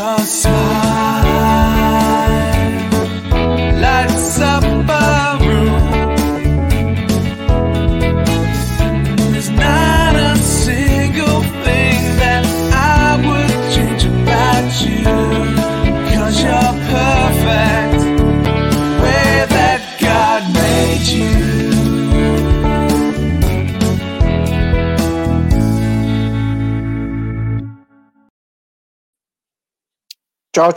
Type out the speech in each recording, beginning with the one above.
your smile lights up a room. There's not a single thing that I would change about you, 'cause you're perfect the way that God made you. Čau.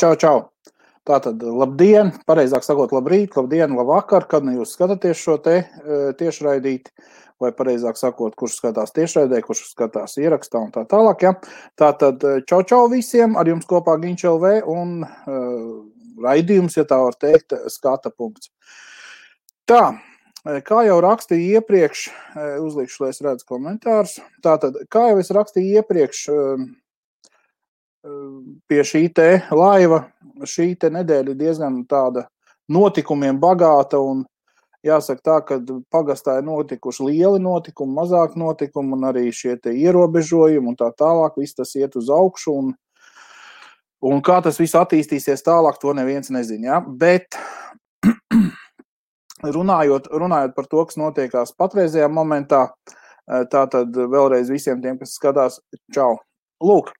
Tātad, labdien, pareizāk sakot, labrīt, labdien, labvakar, kad nu jūs skatāties šo te tiešraidīti, vai pareizāk sakot, kurš skatās tiešraidē, kurš skatās ierakstā un tā tālāk, ja. Tātad, čau visiem, ar jums kopā Giņš LV un raidījums, ja tā var teikt, skata punkts. Tā, kā jau rakstīju iepriekš, uzlikšu, lai es redzu komentārus, tātad, kā jau es rakstīju iepriekš, pie šī te laiva, šī te nedēļa ir diezgan tāda notikumiem bagāta un jāsaka tā, ka pagastā ir notikuši lieli notikumi, mazāk notikumi un arī šie te ierobežojumi un tā tālāk, viss tas iet uz augšu un kā tas viss attīstīsies tālāk, to neviens nezina, ja? Bet runājot par to, kas notiekās patreizajā momentā, tātad vēlreiz visiem tiem, kas skatās, čau. Lūk,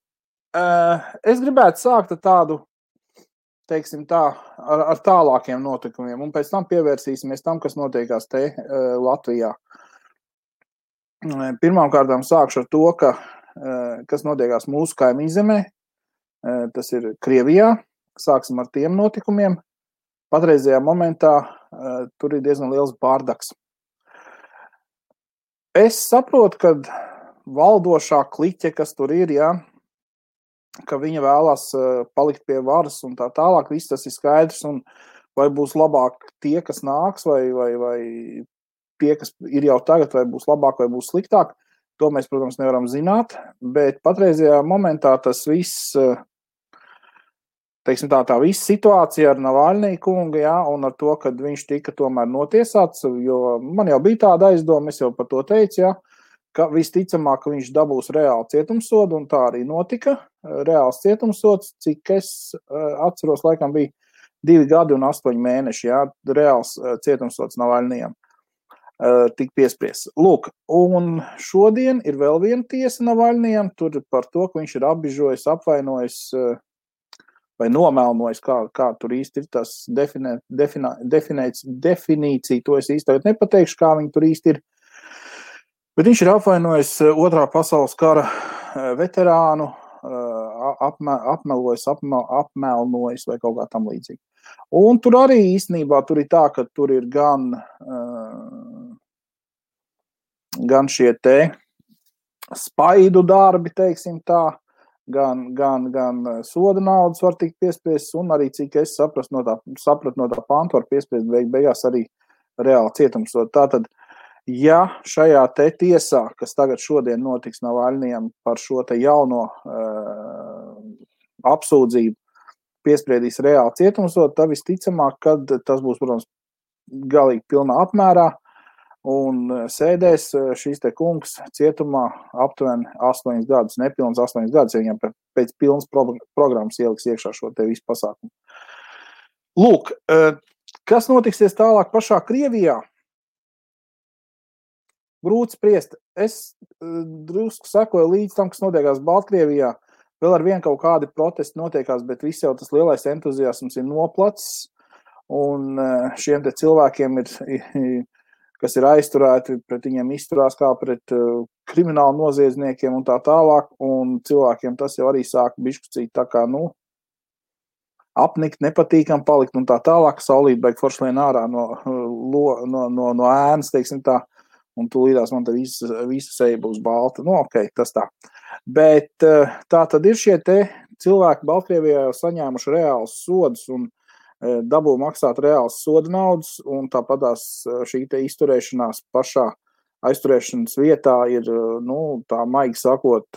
es gribētu sākt ar tādu, teiksim tā, ar tālākiem notikumiem, un pēc tam pievērsīsimies tam, kas notiekās te Latvijā. Pirmkārtām sākšu ar to, kas notiekās mūsu kaimiņzemē, tas ir Krievijā. Sāksim ar tiem notikumiem. Patreizajā momentā tur ir diezgan liels bārdaks. Es saprotu, ka valdošā kliķe, kas tur ir, jā, ka viņa vēlās palikt pie varas un tā tālāk, viss tas ir skaidrs, un vai būs labāk tie, kas nāks, vai tie, kas ir jau tagad, vai būs labāk, vai būs sliktāk, to mēs, protams, nevaram zināt, bet patreizajā momentā tas viss, teiksim tā viss situācija ar Navalniju kungu, jā, un ar to, kad viņš tika tomēr notiesāts, jo man jau bija tāda aizdoma, es jau par to teicu, jā, ka visticamāk, ka viņš dabūs reāli cietumsodu, un tā arī notika. Reāls cietumsods, cik es atceros, laikam bija 2 gadi un 8 mēneši, jā, reāls cietumsods Navalnijam tik piespriests. Lūk, un šodien ir vēl viena tiesa Navalnijam, tur par to, ka viņš ir apbižojis, apvainojis vai nomelnojis, kā tur īsti ir tas definīcija, to es īsti tagad nepateikšu, kā viņi tur īsti ir. Bet viņš ir apvainojis 2. pasaules kara veterānu, apmelnojis vai kaut kā tam līdzīgi. Un tur arī īstenībā tur ir tā, ka tur ir gan šie te spaidu darbi, teiksim tā, gan soda naudas var tikt piespriests, un arī, cik es sapratu no tā pantu, var piespriest beigās arī reāli cietumsodu. Tātad, ja šajā te tiesā, kas tagad šodien notiks Navalnijam par šo te jauno apsūdzību, piespriedīs reāli cietumsodu, tad visticamāk, kad tas būs, protams, galīgi pilnā apmērā, un sēdēs šīs te kungs cietumā aptuveni 8 gadus, nepilns 8 gadus, ja viņam pēc pilnas programmas ieliks iekšā šo te visu pasākumu. Lūk, kas notiksies tālāk pašā Krievijā? Grūti spriest. Es drusku sekoju līdz tam, kas notiekās Baltkrievijā. Vēl ar vien kaut kādi protesti notiekās, bet viss jau tas lielais entuziasms ir noplacis. Un šiem te cilvēkiem kas ir aizturēti, pret viņiem izturās kā pret kriminālu noziedzniekiem un tā tālāk. Un cilvēkiem tas jau arī sāk bišķucīt tā kā, apnikt, nepatīkam palikt un tā tālāk. Saulīt baigi forši lien ārā no ēnas, teiksim tā. Un tūlīdās man te visa seja būs balta. Ok, tas tā. Bet tā tad ir šie te cilvēki Baltkrievijā jau saņēmuši reāls sodus un dabū maksāt reāls soda naudas, un tāpatās šī te izturēšanās pašā aizturēšanas vietā ir, tā maigi sakot,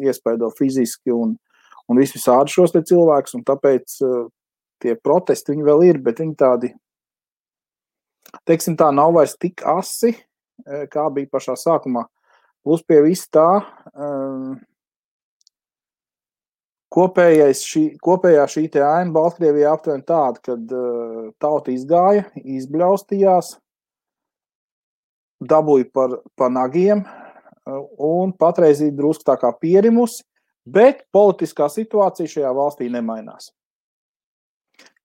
iespaido fiziski un visādi šos te cilvēkus, un tāpēc tie protesti viņi vēl ir, bet viņi tādi, teiksim tā, nav vairs tik asi, kā bija pašā sākumā. Plus pie viss tā, kopējā šī te aina Baltkrievijā aptuveni tāda, kad tauta izgāja, izbļaustījās, dabūja par nagiem un patreiz ir drusku tā kā pierimusi, bet politiskā situācija šajā valstī nemainās.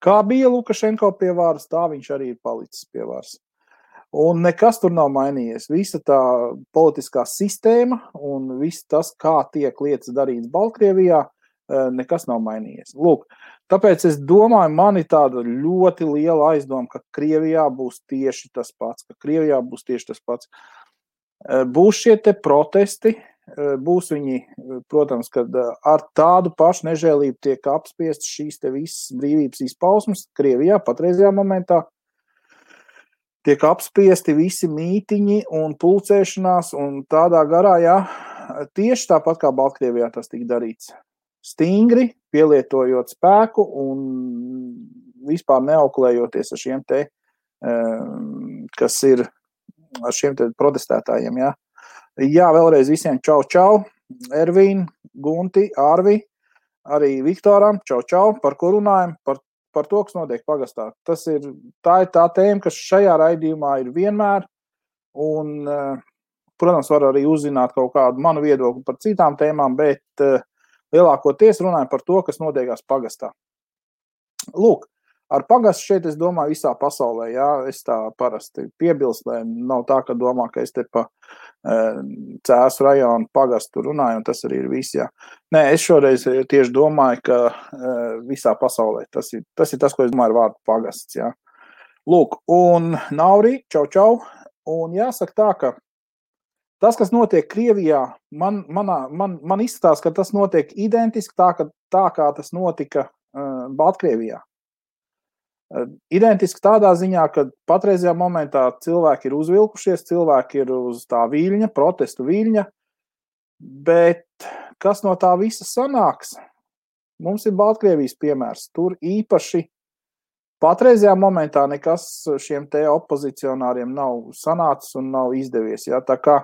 Kā bija Lukašenko pie varas, tā viņš arī ir palicis pie varas. Un nekas tur nav mainījies. Visa tā politiskā sistēma un viss tas, kā tiek lietas darīts Baltkrievijā, nekas nav mainījies. Lūk, tāpēc es domāju, man ir tāda ļoti liela aizdoma, ka Krievijā būs tieši tas pats, Būs šie te protesti, būs viņi, protams, kad ar tādu pašu nežēlību tiek apspiestas šīs te visas brīvības izpausmes Krievijā patreizajā momentā. Tiek apspiesti visi mītiņi un pulcēšanās un tādā garā, jā, tieši tāpat kā Baltkrievijā tas tika darīts. Stingri, pielietojot spēku un vispār neauklējoties ar šiem te, kas ir ar šiem te protestētājiem, jā. Jā, vēlreiz visiem čau, Ervīn, Gunti, Arvi, arī Viktoram, čau, par ko runājam, par to, kas notiek pagastā. Tā ir tā tēma, kas šajā raidījumā ir vienmēr, un, protams, var arī uzzināt kaut kādu manu viedokli par citām tēmām, bet lielākoties runājam par to, kas notiekās pagastā. Lūk, ar pagastu šeit, es domāju, visā pasaulē, jā, es tā parasti piebilst, lai nav tā, ka domā, ka es te pa Cēsu rajonu pagastu runāju, un tas arī ir viss, jā. Nē, es šoreiz tieši domāju, ka visā pasaulē tas ir tas, ko es domāju ar vārdu pagasts, jā. Lūk, un Nauri, čau, un jāsaka tā, ka tas, kas notiek Krievijā, man izskatās, ka tas notiek identiski tā kā tas notika Baltkrievijā. Identiski tādā ziņā, ka patreizajā momentā cilvēki ir uzvilkušies, cilvēki ir uz tā viļņa, protestu viļņa, bet kas no tā visa sanāks? Mums ir Baltkrievijas piemērs. Tur īpaši patreizajā momentā nekas šiem te opozicionāriem nav sanācis un nav izdevies. Ja? Tā kā,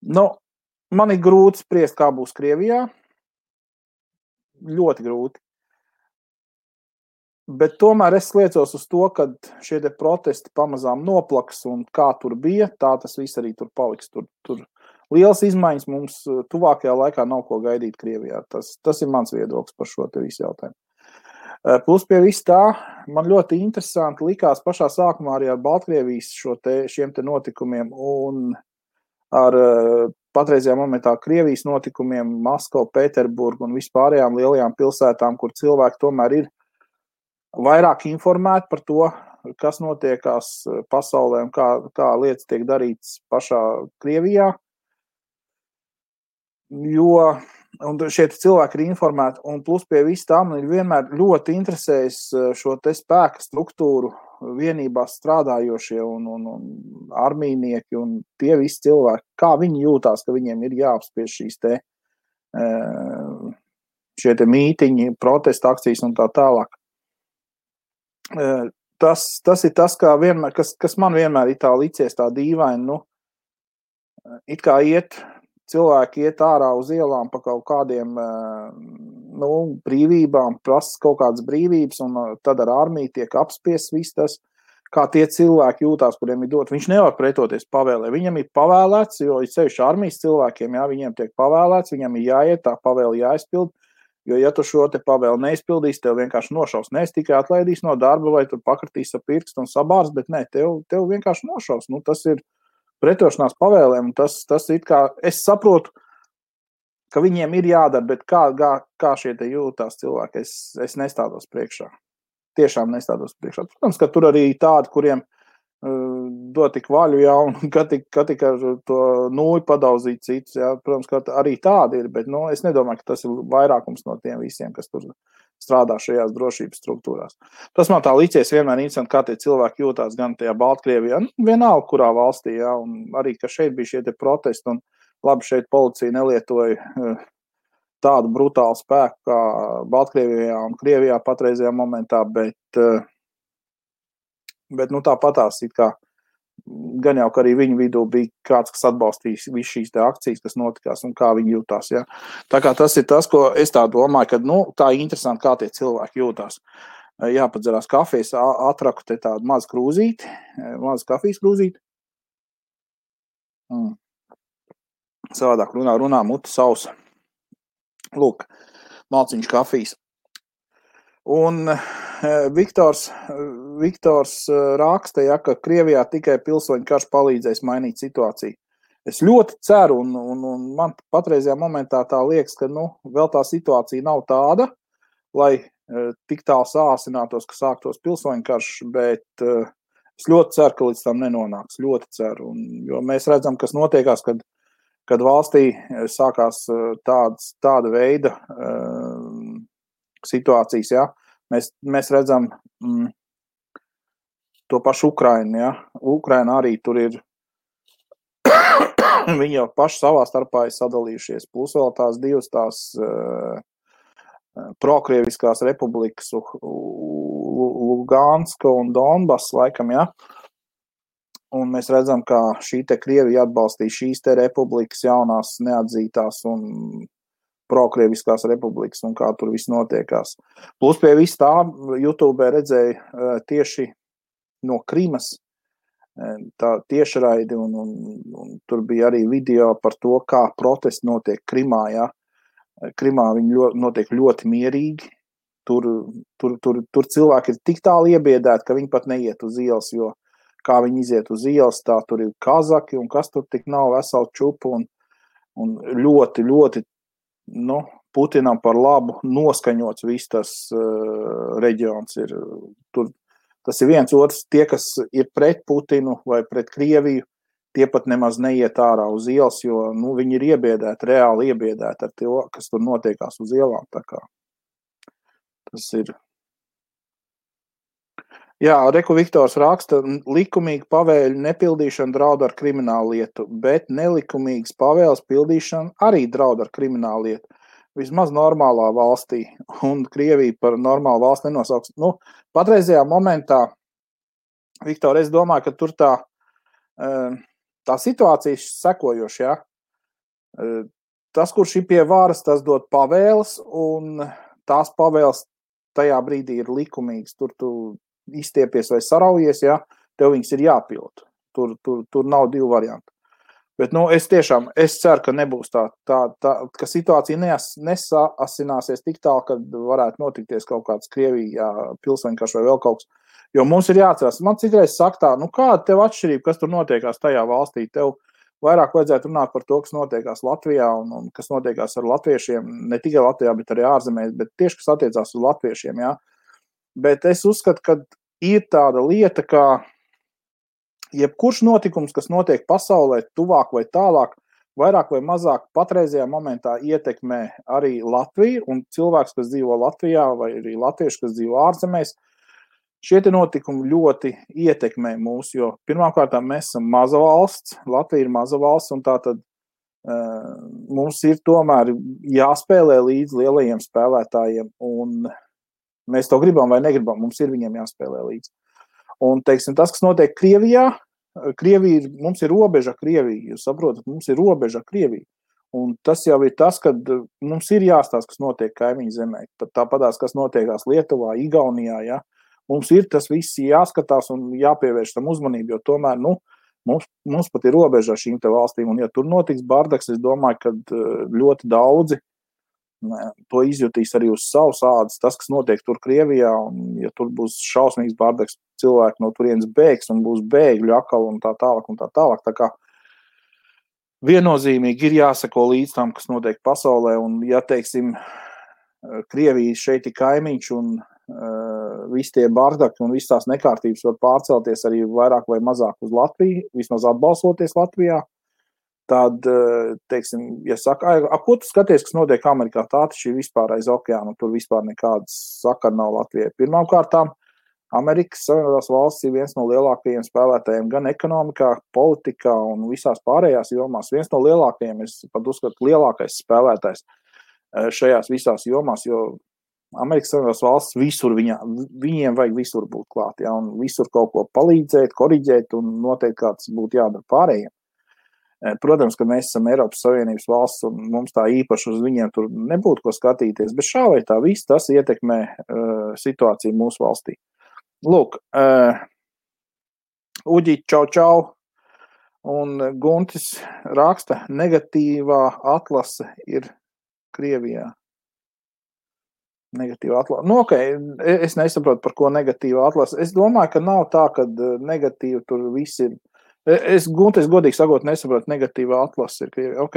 man ir grūti spriest, kā būs Krievijā. Ļoti grūti. Bet tomēr es liecos uz to, ka šie te protesti pamazām noplaks un kā tur bija, tā tas viss arī tur paliks. Tur liels izmaiņas mums tuvākajā laikā nav ko gaidīt Krievijā. Tas ir mans viedoklis par šo te visu jautājumu. Plus pie viss tā, man ļoti interesanti likās pašā sākumā arī ar Baltkrievijas šiem te notikumiem un ar patreizajā momentā Krievijas notikumiem, Maskavu, Pēterburgu un vispārējām lielajām pilsētām, kur cilvēki tomēr ir vairāk informēti par to, kas notiekās pasaulē un kā lietas tiek darītas pašā Krievijā. Un šie cilvēki ir informēti, un plus pie viss tā, man ir vienmēr ļoti interesējis šo te spēka struktūru vienībās strādājošie un armijnieki un tie visi cilvēki, kā viņi jūtās, ka viņiem ir jāapspiež šie te mītiņi, protesta akcijas un tā tālāk. Tas ir tas, kas man vienmēr ir tā licies tā dīvaini, it kā cilvēki iet ārā uz ielām pa kaut kādiem brīvībām, prasa kaut kādas brīvības, un tad ar armiju tiek apspiests viss tas, kā tie cilvēki jūtās, kuriem ir dot. Viņš nevar pretoties pavēlē. Viņam ir pavēlēts, jo sevišķi armijas cilvēkiem, jā, viņiem tiek pavēlēts, viņam ir jāiet, tā pavēle jāizpild. Jo, ja tu šo te pavēli neizpildīsi, tev vienkārši nošaus. Ne, es tikai atlaidīs no darba, vai tu pakratīs ar pirkstu un sabārs, bet ne, tev vienkārši nošaus. Tas ir pretošanās pavēlēm, un tas ir kā, es saprotu, ka viņiem ir jādara, bet kā šie te jūtās cilvēki, es nestādos priekšā. Tiešām nestādos priekšā. Protams, ka tur arī tādi, kuriem dot tik vaļu, jā, un ka tik ar to nūju padauzīt citus, jā, protams, ka arī tādi ir, bet, es nedomāju, ka tas ir vairākums no tiem visiem, kas tur strādā šajās drošības struktūrās. Tas man tā licies vienmēr interesanti, kā tie cilvēki jūtās gan tajā Baltkrievijā, vienalga, kurā valstī, jā, un arī, ka šeit bija šie te protesti, un labi, šeit policija nelietoja tādu brutālu spēku kā Baltkrievijā un Krievijā patreizajā momentā, bet tāpatās it kā gan jau, ka arī viņu vidū bija kāds, kas atbalstīs visu šīs te akcijas, kas notikās un kā viņi jūtās. Ja. Tā kā tas ir tas, ko es tā domāju, ka tā ir interesanti, kā tie cilvēki jūtās. Jāpadzerās kafijas, atraku te tādu mazu krūzīti, mazu kafijas krūzīti. Savādāk runā muti sausa. Lūk, malciņš kafijas. Un Viktors raksta, ja, ka Krievijā tikai pilsoņu karš palīdzēs mainīt situāciju. Es ļoti ceru, un man patreizajā momentā tā liekas, ka vēl tā situācija nav tāda, lai tik tālu sāsinātos, ka sāktos pilsoņu karš, bet es ļoti ceru, ka līdz tam nenonāks. Ļoti ceru. Jo mēs redzam, kas notiekās, kad valstī sākās tāda veida situācijas, ja. Mēs redzam to pašu Ukrainu, ja. Ukraina arī tur ir, viņi jau paši savā starpā ir sadalījušies, plus vēl tās divas prokrieviskās republikas, Luganska un Donbass, laikam, ja. Un mēs redzam, ka šī te Krievija atbalstīja šīs te republikas jaunās neatzītās un prokrieviskās republikas un kā tur viss notiekās. Plus pie viss tā YouTube redzēja tieši no Krimas tā tiešraidi un tur bija arī video par to, kā protesti notiek Krimā, ja. Krimā viņi notiek ļoti mierīgi. Tur cilvēki ir tik tālu iebiedēti, ka viņi pat neiet uz ielas, jo kā viņi iziet uz ielas, tā tur ir kazaki un kas tur tik nav veselu čupu un ļoti, ļoti Putinam par labu noskaņots viss tas reģions ir. Tas ir viens otrs, tie, kas ir pret Putinu vai pret Krieviju, tie pat nemaz neiet ārā uz ielas, jo viņi ir iebiedēti, reāli iebiedēti ar to, kas tur notiekās uz ielām. Tā kā tas ir. Jā, Reku Viktors raksta, likumīga pavēļu nepildīšana draud ar kriminālu lietu, bet nelikumīgas pavēles pildīšana arī draud ar kriminālu lietu. Vismaz normālā valstī, un Krievija par normālu valsti nenosauks. Patreizajā momentā, Viktor, es domāju, ka tur tā situācija sekojoša, ja? Tas, kurš ir pie varas, tas dod pavēles, un tās pavēles tajā brīdī ir likumīgas. Tur tu izstiepies vai saraujies, ja? Tev viņas ir jāpild. Tur nav divu variantu. Bet, es ceru, ka nebūs tā ka situācija nesaasināsies tik tālu, kad varētu notikties kaut kāds Krievijā pilsoņkarš vai vēl kaut kas. Jo mums ir jāatcerās, man citreiz saka tā, kāda tev atšķirība, kas tur notiekās tajā valstī? Tev vairāk vajadzētu runāt par to, kas notiekās Latvijā un kas notiekās ar latviešiem, ne tikai Latvijā, bet arī ārzemēs, bet tieši, kas attiecās uz latviešiem, jā. Bet es uzskatu, ka ir tāda lieta, kā jebkurš notikums, kas notiek pasaulē, tuvāk vai tālāk, vairāk vai mazāk patreizajā momentā ietekmē arī Latviju un cilvēks, kas dzīvo Latvijā vai arī latvieši, kas dzīvo ārzemēs. Šie te notikumi ļoti ietekmē mūs, jo pirmkārt mēs esam maza valsts, Latvija ir maza valsts un tātad mums ir tomēr jāspēlē līdz lielajiem spēlētājiem un mēs to gribam vai negribam, mums ir viņiem jāspēlē līdz. Un, teiksim, tas, kas notiek Krievijā, mums ir robeža Krievija, jūs saprotat, mums ir robeža Krievija. Un tas jau ir tas, kad mums ir jāstāsta, kas notiek kaimiņu zemē. Tāpatās, kas notiekās Lietuvā, Igaunijā, ja. Mums ir tas viss jāskatās un jāpievērš tam uzmanību, jo tomēr, mums pat ir robeža šīm te valstīm. Un, ja tur notiks bardaks, es domāju, ka ļoti daudzi to izjutīs arī uz savas ādas, tas, kas notiek tur Krievijā, un ja tur būs šausmīgs bardaks, cilvēki no turienes bēgs un būs bēgļu akal un tā tālāk un tā tālāk. Tā kā viennozīmīgi ir jāsako līdz tam, kas notiek pasaulē, un ja, teiksim, Krievija šeit ir kaimiņš un visi tie bardaki un visas tās nekārtības var pārcelties arī vairāk vai mazāk uz Latviju, vismaz atbalstoties Latvijā, tad, teiksim, ja saka, ko tu skaties, kas notiek Amerikā, tā taču ir vispār aiz okeāna, tur vispār nekādas sakara nav Latvijai. Pirmkārtām, Amerikas Savienotās valsts ir viens no lielākajiem spēlētājiem gan ekonomikā, politikā un visās pārējās jomās. Viens no lielākajiem, es pat uzskatu, lielākais spēlētājs šajās visās jomās, jo Amerikas Savienotās valsts visur viņiem vajag visur būt klāt, ja, un visur kaut ko palīdzēt, koriģēt un noteikti kā tas būtu jādara pārējiem. Protams, ka mēs esam Eiropas Savienības valsts un mums tā īpaši uz viņiem tur nebūtu ko skatīties, bet šā vai tā viss tas ietekmē situāciju mūsu valstī. Lūk, Uģi, čau, un Guntis raksta, negatīvā atlase ir Krievijā. Negatīva atlase. Nu, ok, es nesaprotu, par ko negatīva atlase. Es domāju, ka nav tā, ka negatīva tur viss ir. Guntis, godīgi sakot, nesaprotu, negatīva atlase ir Krievijā. Ok.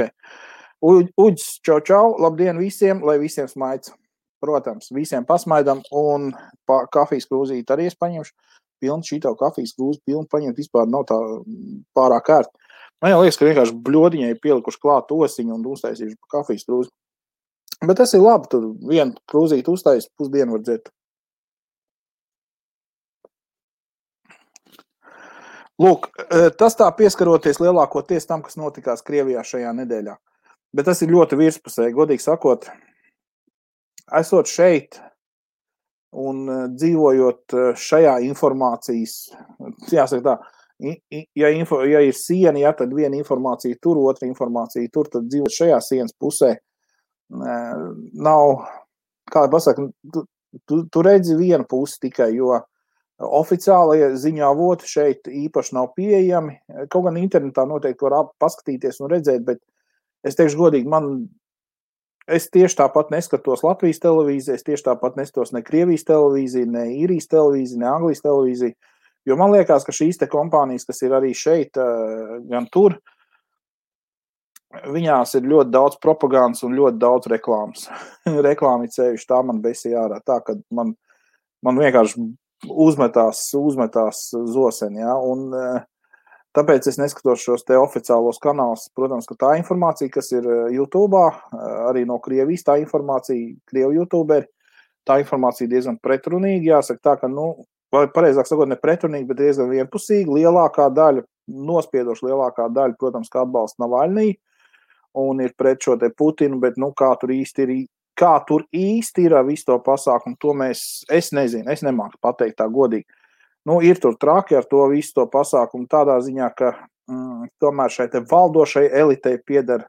Uģis, čau, labdien visiem, lai visiem smaids. Protams, visiem pasmaidam un kafijas krūzīt arī es paņemšu. Pilnu šito kafijas krūzi, pilnu paņemt vispār nav tā pārāk ērt. Man jau liekas, ka vienkārši bļodiņai pielikuši klāt osiņu un uztaisīšu kafijas krūzi. Bet tas ir labi, tur vienu krūzīti uztais, pusdienu var dzert. Lūk, tas tā pieskaroties lielākoties tam, kas notikās Krievijā šajā nedēļā. Bet tas ir ļoti virspusēji, godīgi sakot, esot šeit un dzīvojot šajā informācijas, jāsaka tā, ja ir siena, ja, tad viena informācija tur, otra informācija tur, tad dzīvot šajā sienas pusē, nav, kā pasaka, tu redzi vienu pusi tikai, jo oficiālie ziņā avoti šeit īpaši nav pieejami. Kaut gan internetā noteikti var paskatīties un redzēt, bet es teikšu godīgi, es tieši tāpat neskatos Latvijas televīziju, es tieši tāpat neskatos ne Krievijas televīziju, ne Īrijas televīziju, ne Anglijas televīziju, jo man liekas, ka šīs te kompānijas, kas ir arī šeit, gan tur, viņās ir ļoti daudz propagandas un ļoti daudz reklāmas. Reklāmi cevišķi, tā man besīja ārā, tā, ka man vienkārši uzmetās zoseni, ja, un tāpēc es neskatos šos te oficiālos kanālus. Protams, ka tā informācija, kas ir YouTube'ā, arī no Krievijas, tā informācija, Krievu YouTuberi, tā informācija diezgan pretrunīga, jāsaka tā, ka, vai pareizāk sakot, ne pretrunīga, bet diezgan vienpusīga, lielākā daļa, nospiedoši lielākā daļa, protams, ka atbalsta Navaļnī, un ir pret šo te Putinu, bet, kā tur īsti ir visu to pasākumu, to es nezinu, es nemāku pateikt tā godīgi. Ir tur traki ar to visu to pasākumu tādā ziņā, ka tomēr šai te valdošai elitei pieder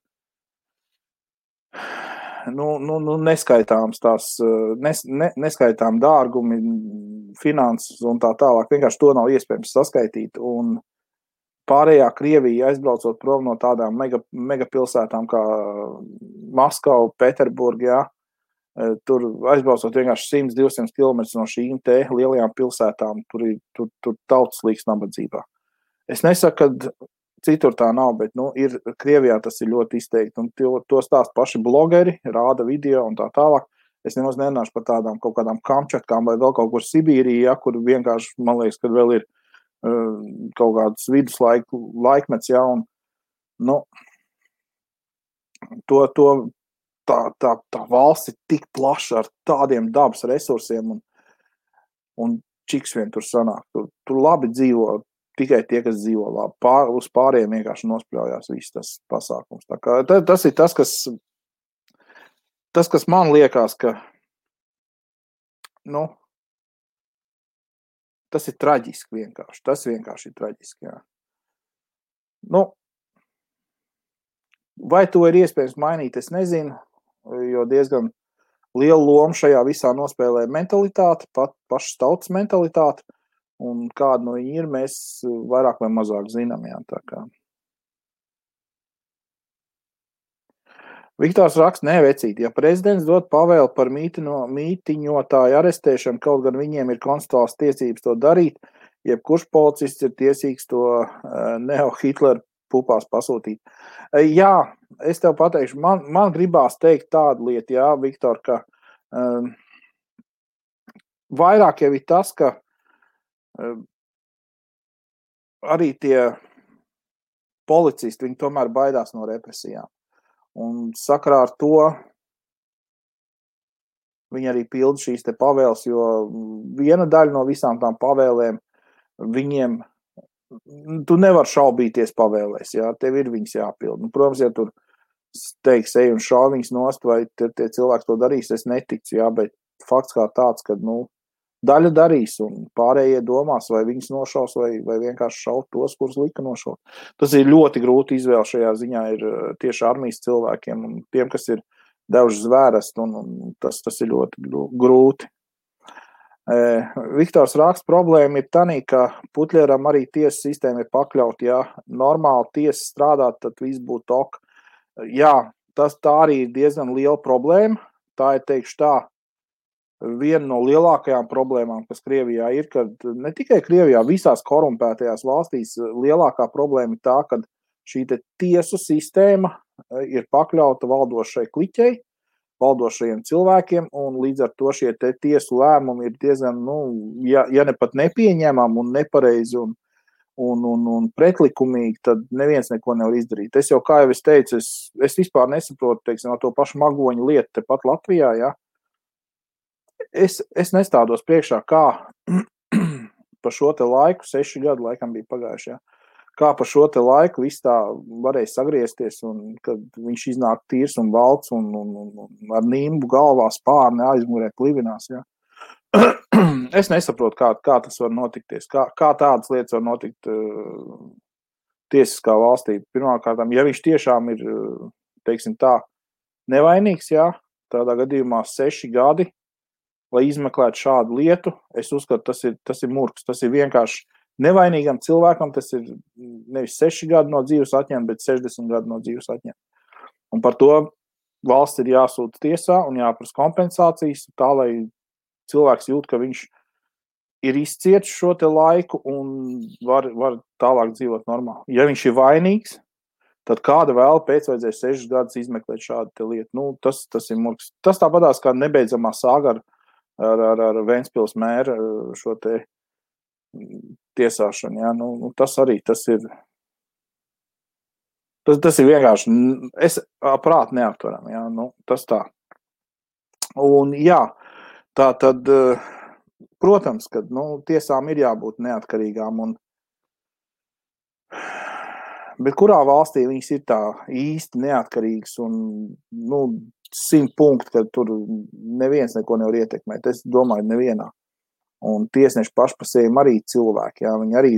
neskaitāms neskaitām dārgumi, finanses un tā tālāk. Vienkārši to nav iespējams saskaitīt. Un pārējā Krievija aizbraucot prom no tādām megapilsētām kā Maskava, Pēterburga, jā, tur aizbraucot vienkārši 100-200 km no šīm te lielajām pilsētām, tur tautas līks nabadzībā. Es nesaku, ka citur tā nav, bet ir Krievijā tas ir ļoti izteikti, un to stāst paši blogeri, rāda video un tā tālāk. Es nemaz nenāšu par tādām kaut kādām Kamčatkām vai vēl kaut kur Sibīrijā, kur vienkārši, man liekas, kad vēl ir kaut kāds viduslaikmets, jā, un tā valsts ir tik plaša ar tādiem dabas resursiem, un čiks vien tur sanāk. Tur labi dzīvo tikai tie, kas dzīvo labi. Uz pārējiem vienkārši nospļaujās viss tas pasākums. Tā kā, tas ir tas, kas man liekas, ka tas ir traģiski vienkārši. Tas vienkārši ir traģiski, jā. Vai to ir iespējams mainīt, es nezinu, jo diezgan lielu lomu šajā visā nospēlē mentalitāte, pašas tautas mentalitāte, un kāda no viņi ir, mēs vairāk vai mazāk zinām, jā, tā kā. Viktors raksta, vecīt, ja prezidents dod pavēli par mītiņotāju arestēšanu, kaut gan viņiem ir konstitucionālas tiesības to darīt, jebkurš policists ir tiesīgs to neo-Hitler pupās pasūtīt. Jā, es tev pateikšu, man gribās teikt tādu lietu, jā, Viktor, ka vairāk jau ir tas, ka arī tie policisti, viņi tomēr baidās no represijām. Un sakarā ar to viņi arī pilda šīs te pavēles, jo viena daļa no visām tām pavēlēm viņiem, tu nevar šaubīties pavēlēs, jā, tev ir viņas jāpilda. Protams, ja tur teiks, ej un šauj viņas nost, vai tie cilvēki to darīs, es neticu, jā, bet fakts kā tāds, ka, daļa darīs un pārējie domās, vai viņus nošaus, vai vienkārši šaut tos, kurus lika nošaut. Tas ir ļoti grūti izvēle šajā ziņā ir tieši armijas cilvēkiem un tiem, kas ir devuši zvērest, un tas ir ļoti grūti. Viktors raksta, problēma ir tanī, ka Putļeram arī tiesas sistēma ir pakļauta, ja normāli tiesa strādāt, tad viss būtu ok. Jā, tā arī ir diezgan liela problēma, tā ir, teikšu tā, viena no lielākajām problēmām, kas Krievijā ir, kad ne tikai Krievijā, visās korumpētajās valstīs lielākā problēma ir tā, ka šī tiesu sistēma ir pakļauta valdošai kliķei, valdošajiem cilvēkiem, un līdz ar to šie tiesu lēmumi ir diezgan, ja ne pat nepieņemami un nepareizi un pretlikumīgi, tad neviens neko nevar izdarīt. Es jau, kā jau es teicu, es vispār nesaprotu, teiksim, to pašu Magoņu lietu tepat Latvijā, ja. Es nestādos priekšā, kā pa šo te laiku, 6 gadu laikam bija pagājuši, ja, kā pa šo te laiku viss tā varēja sagriezties, un kad viņš iznāk tīrs un valds un ar nimbu galvā spārni aizmurē klivinās, ja. Es nesaprotu, kā tas var notikties, kā tādas lietas var notikt tiesiskā valstī. Pirmkārt, ja viņš tiešām ir, teiksim tā, nevainīgs, ja, tādā gadījumā 6 gadi, lai izmeklētu šādu lietu, es uzskatu, tas ir murgs, tas ir vienkārši nevainīgam cilvēkam, tas ir nevis 6 gadi no dzīves atņemt, bet 60 gadi no dzīves atņemt. Un par to valsts ir jāsūta tiesā un jāprasa kompensācijas, tā, lai cilvēks jūt, ka viņš ir izcietis šo te laiku un var tālāk dzīvot normāli. Ja viņš ir vainīgs, tad kāda vēl pēc vajadzēs 6 gadus izmeklēt šādu te lietu. Tas ir murgs. Tas tāpatās kā nebeidzamā sāga ar Ventspils mēru šo te tiesāšanu. Ja? Tas arī, tas ir vienkārši, es prāt neaptveram. Ja? Tas tā. Un jā, tā tad, protams, ka tiesām ir jābūt neatkarīgām, bet kurā valstī viņas ir tā īsti neatkarīgas un 100 punkti, ka tur neviens neko nevar ietekmēt. Es domāju, nevienā. Un tiesneši paši par sevi arī cilvēki. Jā, viņi arī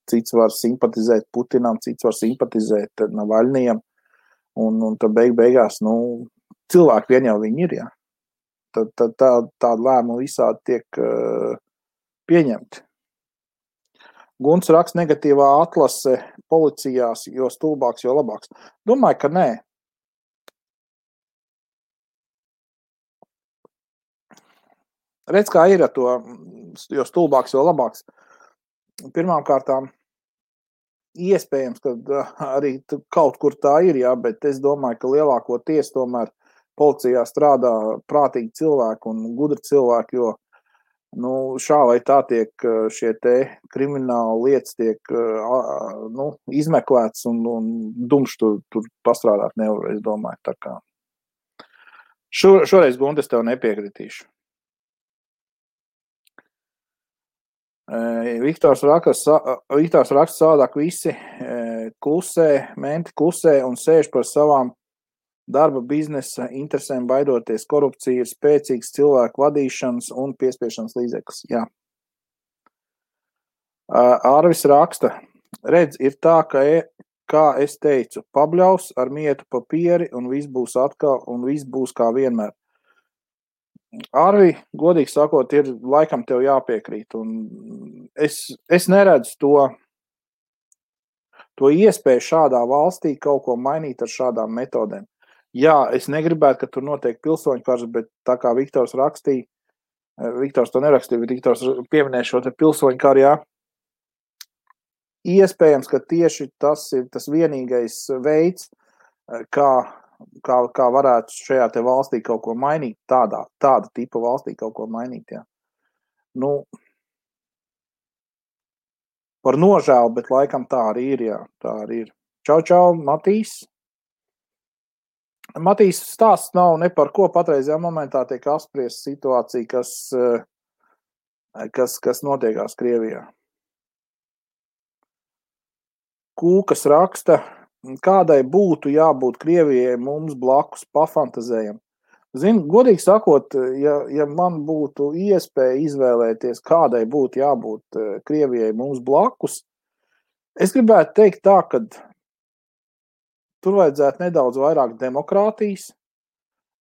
cits var simpatizēt Putinam, cits var simpatizēt Navaļnijam. Un tad beigās, cilvēki vien jau viņi ir, jā. Tad tāda lēmuma visādi tiek pieņemti. Gunts raksta negatīvā atlase policijās, jo stulbāks, jo labāks. Domāju, ka nē. Redz, kā ir ar to, jo stulbāks, jo labāks. Pirmām kārtām, iespējams, ka arī kaut kur tā ir, jā, bet es domāju, ka lielākoties tomēr policijā strādā prātīgi cilvēki un gudri cilvēki, jo šā vai tā tiek šie te krimināli lietas tiek izmeklēts un dumšs tur pastrādāt nevar, es domāju. Tā kā. Šoreiz, Gunte, es tev nepiekritīšu. Viktors raksta savādāk visi klusē, menti klusē un sēž par savām darba biznesa interesēm baidoties. Korupcija ir spēcīgs cilvēku vadīšanas un piespiešanas līdzeklis. Jā. Arvis raksta, redz, ir tā, kā es teicu, pabļaus ar mietu papieri un viss būs atkal un viss būs kā vienmēr. Arvi, godīgi sakot, ir laikam tev jāpiekrīt, un es neredzu to iespēju šādā valstī kaut ko mainīt ar šādām metodēm. Jā, es negribētu, ka tur notiek pilsoņu karš, bet tā kā Viktors rakstīja, Viktors to nerakstīja, bet Viktors pieminēja šo te pilsoņu karu, jā. Iespējams, ka tieši tas ir tas vienīgais veids, kā varētu šajā te valstī kaut ko mainīt, tāda tipa valstī kaut ko mainīt, jā. Par nožēlu, bet laikam tā arī ir, jā, tā arī ir. Čau, Matīs. Matīs stāsts nav ne par ko patreizajā momentā tiek apspriest situācija, kas notiekās Krievijā. Kūkas raksta, kādai būtu jābūt Krievijai mums blakus pafantazējam. Zini, godīgi sakot, ja man būtu iespēja izvēlēties, kādai būtu jābūt Krievijai mums blakus, es gribētu teikt tā, ka tur vajadzētu nedaudz vairāk demokrātijas,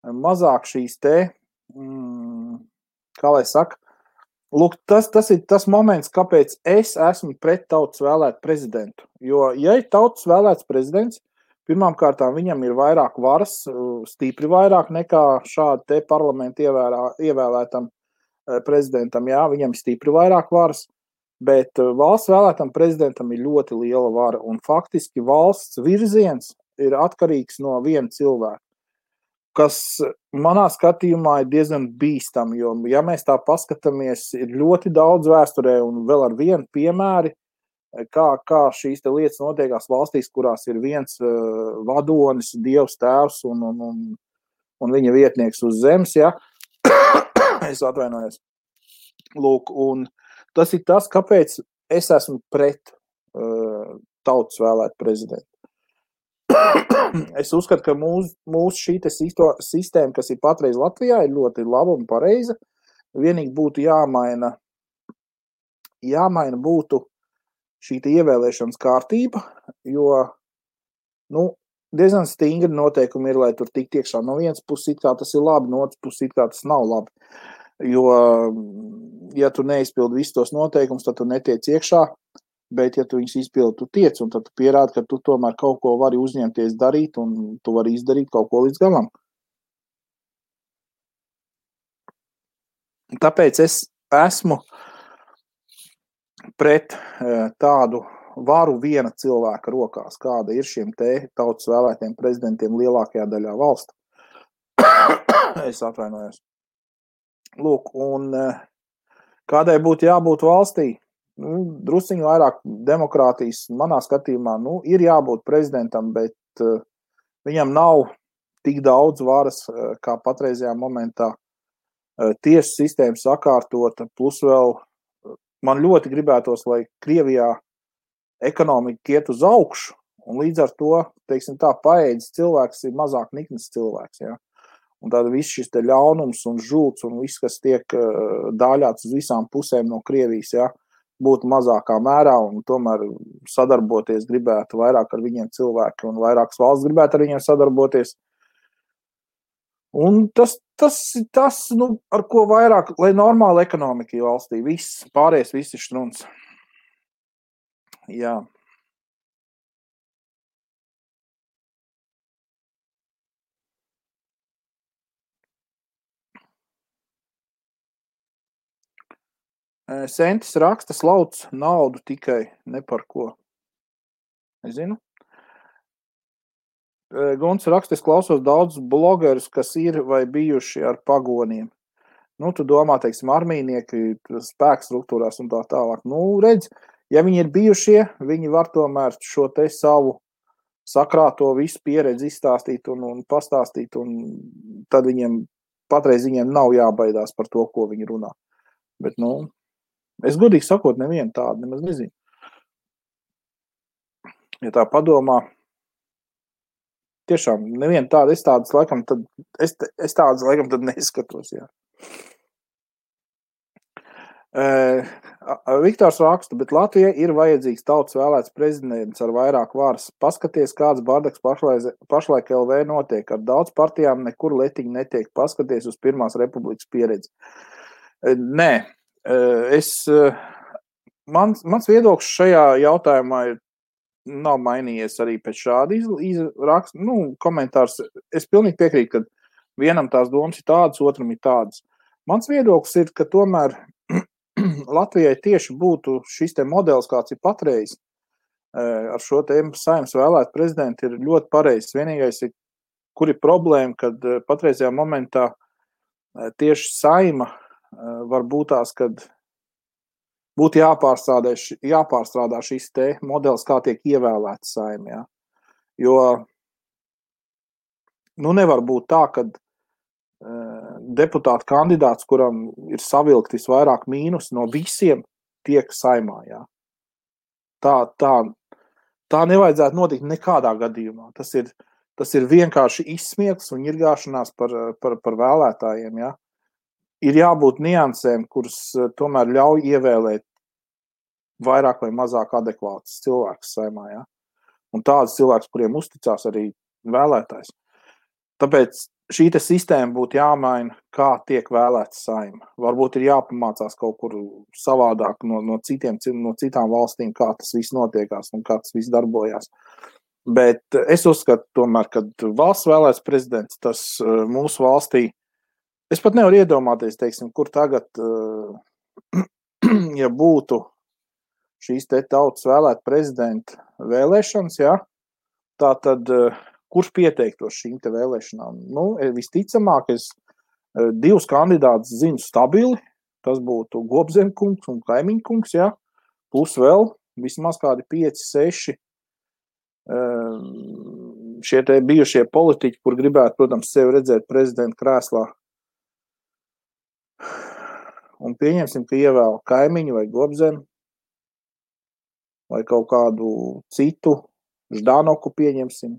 mazāk šīs te, kā lai saka, lūk, tas ir tas moments, kāpēc es esmu pret tautas vēlētu prezidentu. Jo, ja ir tautas vēlēts prezidents, pirmām kārtām viņam ir vairāk varas, stipri vairāk nekā šādi te parlamentu ievēlētam prezidentam. Jā, viņam ir stipri vairāk varas, bet valsts vēlētam prezidentam ir ļoti liela vara. Un faktiski valsts virziens ir atkarīgs no viena cilvēka, kas manā skatījumā ir diezgan bīstam, jo, ja mēs tā paskatāmies, ir ļoti daudz vēsturē un vēl ar vienu piemēri, kā šīs te lietas notiekās valstīs, kurās ir viens vadonis, Dievs tēvs un viņa vietnieks uz zemes, ja? Es atvainojos. Lūk, un tas ir tas, kāpēc es esmu pret tautas vēlētu prezidentu. Es uzskatu, ka mūsu šī te sistēma, kas ir patreiz Latvijā, ir ļoti laba un pareiza. Vienīgi būtu jāmaina būtu šī ievēlēšanas kārtība, jo diezgan stingri noteikumi ir, lai tur tikt iekšā. No vienas puses it kā tas ir labi, no otras puses it kā tas nav labi. Jo, ja tu neizpildi visus tos noteikumus, tad tu netiec iekšā, bet ja tu viņus izpildi, tu tiec, un tad tu pierādi, ka tu tomēr kaut ko vari uzņemties darīt, un tu vari izdarīt kaut ko līdz galam. Tāpēc es esmu pret tādu varu viena cilvēka rokās, kāda ir šiem te tautas vēlētiem prezidentiem lielākajā daļā valsts. Es atvainojos. Lūk, un kādai būtu jābūt valstī? Drusciņu vairāk demokrātijas manā skatījumā, ir jābūt prezidentam, bet viņam nav tik daudz varas, kā patreizajā momentā tiesu sistēma sakārtota, plus vēl man ļoti gribētos, lai Krievijā ekonomika iet uz augšu, un līdz ar to, teiksim tā, paēdis cilvēks ir mazāk niknis cilvēks, ja? Un tad viss šis te ļaunums un žults un viss, kas tiek dāļāts uz visām pusēm no Krievijas, ja, būtu mazākā mērā, un tomēr sadarboties gribētu vairāk ar viņiem cilvēki, un vairākas valsts gribētu ar viņiem sadarboties. Un tas ir tas, ar ko vairāk, lai normāla ekonomika ir valstī, viss, pārējais viss ir štruns. Jā. Sentis raksta, slauc naudu tikai ne par ko. Es zinu. Guns raksta, es klausos daudz blogerus, kas ir vai bijuši ar pagoniem. Tu domā, teiksim, armijnieki, spēku struktūrās un tā tālāk. Redz, ja viņi ir bijušie, viņi var tomēr šo te savu sakrāto visu pieredzi izstāstīt un pastāstīt, un tad patreiz viņiem nav jābaidās par to, ko viņi runā. Bet, es godīgi sakot, nevienu tādu nemaz nezinu. Ja tā padomā, tiešām nevienu tādu, es tādas laikam tad neskatos, jā. Viktors raksta, bet Latvijai ir vajadzīgs tautas vēlēts prezidents ar vairāk varas. Paskaties, kāds bardaks pašlaik LV notiek. Ar daudz partijām nekur letiņi netiek. Paskaties uz Pirmās republikas pieredzi. Nē, mans viedoklis šajā jautājumā nav mainījies arī pēc šāda raksta, komentārs. Es pilnīgi piekrītu, ka vienam tās domas ir tādas, otram ir tādas. Mans viedoklis ir, ka tomēr Latvijai tieši būtu šis te modelis, kāds ir patreiz, ar šo te Saeimas vēlētu prezidentu, ir ļoti pareizs. Vienīgais ir, kur ir problēma, kad patreizajā momentā tieši Saeima var būt tās, kad būtu jāpārstrādā šis te modelis, kā tiek ievēlēts Saeima. Ja? Jo nevar būt tā, kad deputāta kandidāts, kuram ir savilkt visvairāk mīnus no visiem, tiek Saeimā. Jā. Tā nevajadzētu notikt nekādā gadījumā. Tas ir tas ir vienkārši izsmiekls un ņirgāšanās par vēlētājiem, ja. Ir jābūt niansēm, kuras tomēr ļauj ievēlēt vairāk vai mazāk adekvātus cilvēkus saimā, ja. Un tādus cilvēkus, kuriem uzticās arī vēlētājs. Tāpēc šī sistēma būtu jāmaina, kā tiek vēlēts saima. Varbūt ir jāpamācās kaut kur savādāk no citām valstīm, kā tas viss notiekās un kā tas viss darbojās. Bet es uzskatu tomēr, ka valsts vēlēts prezidents, tas mūsu valstī, es pat nevaru iedomāties, teiksim, kur tagad, ja būtu šīs te tautas vēlēt prezidenta vēlēšanas, ja, tā tad kurš pieteiktos šīm te vēlēšanām? Nu, visticamāk, es 2 kandidātus zinu stabili, tas būtu Gobzemkungs un Kaimiņkungs, ja, plus vēl vismaz kādi 5, 6 šie te bijušie politiķi, kur gribētu, protams, sevi redzēt prezidenta krēslā. Un pieņemsim, ka ievēl Kaimiņu vai Gobzemi, vai kaut kādu citu, Ždanoku pieņemsim.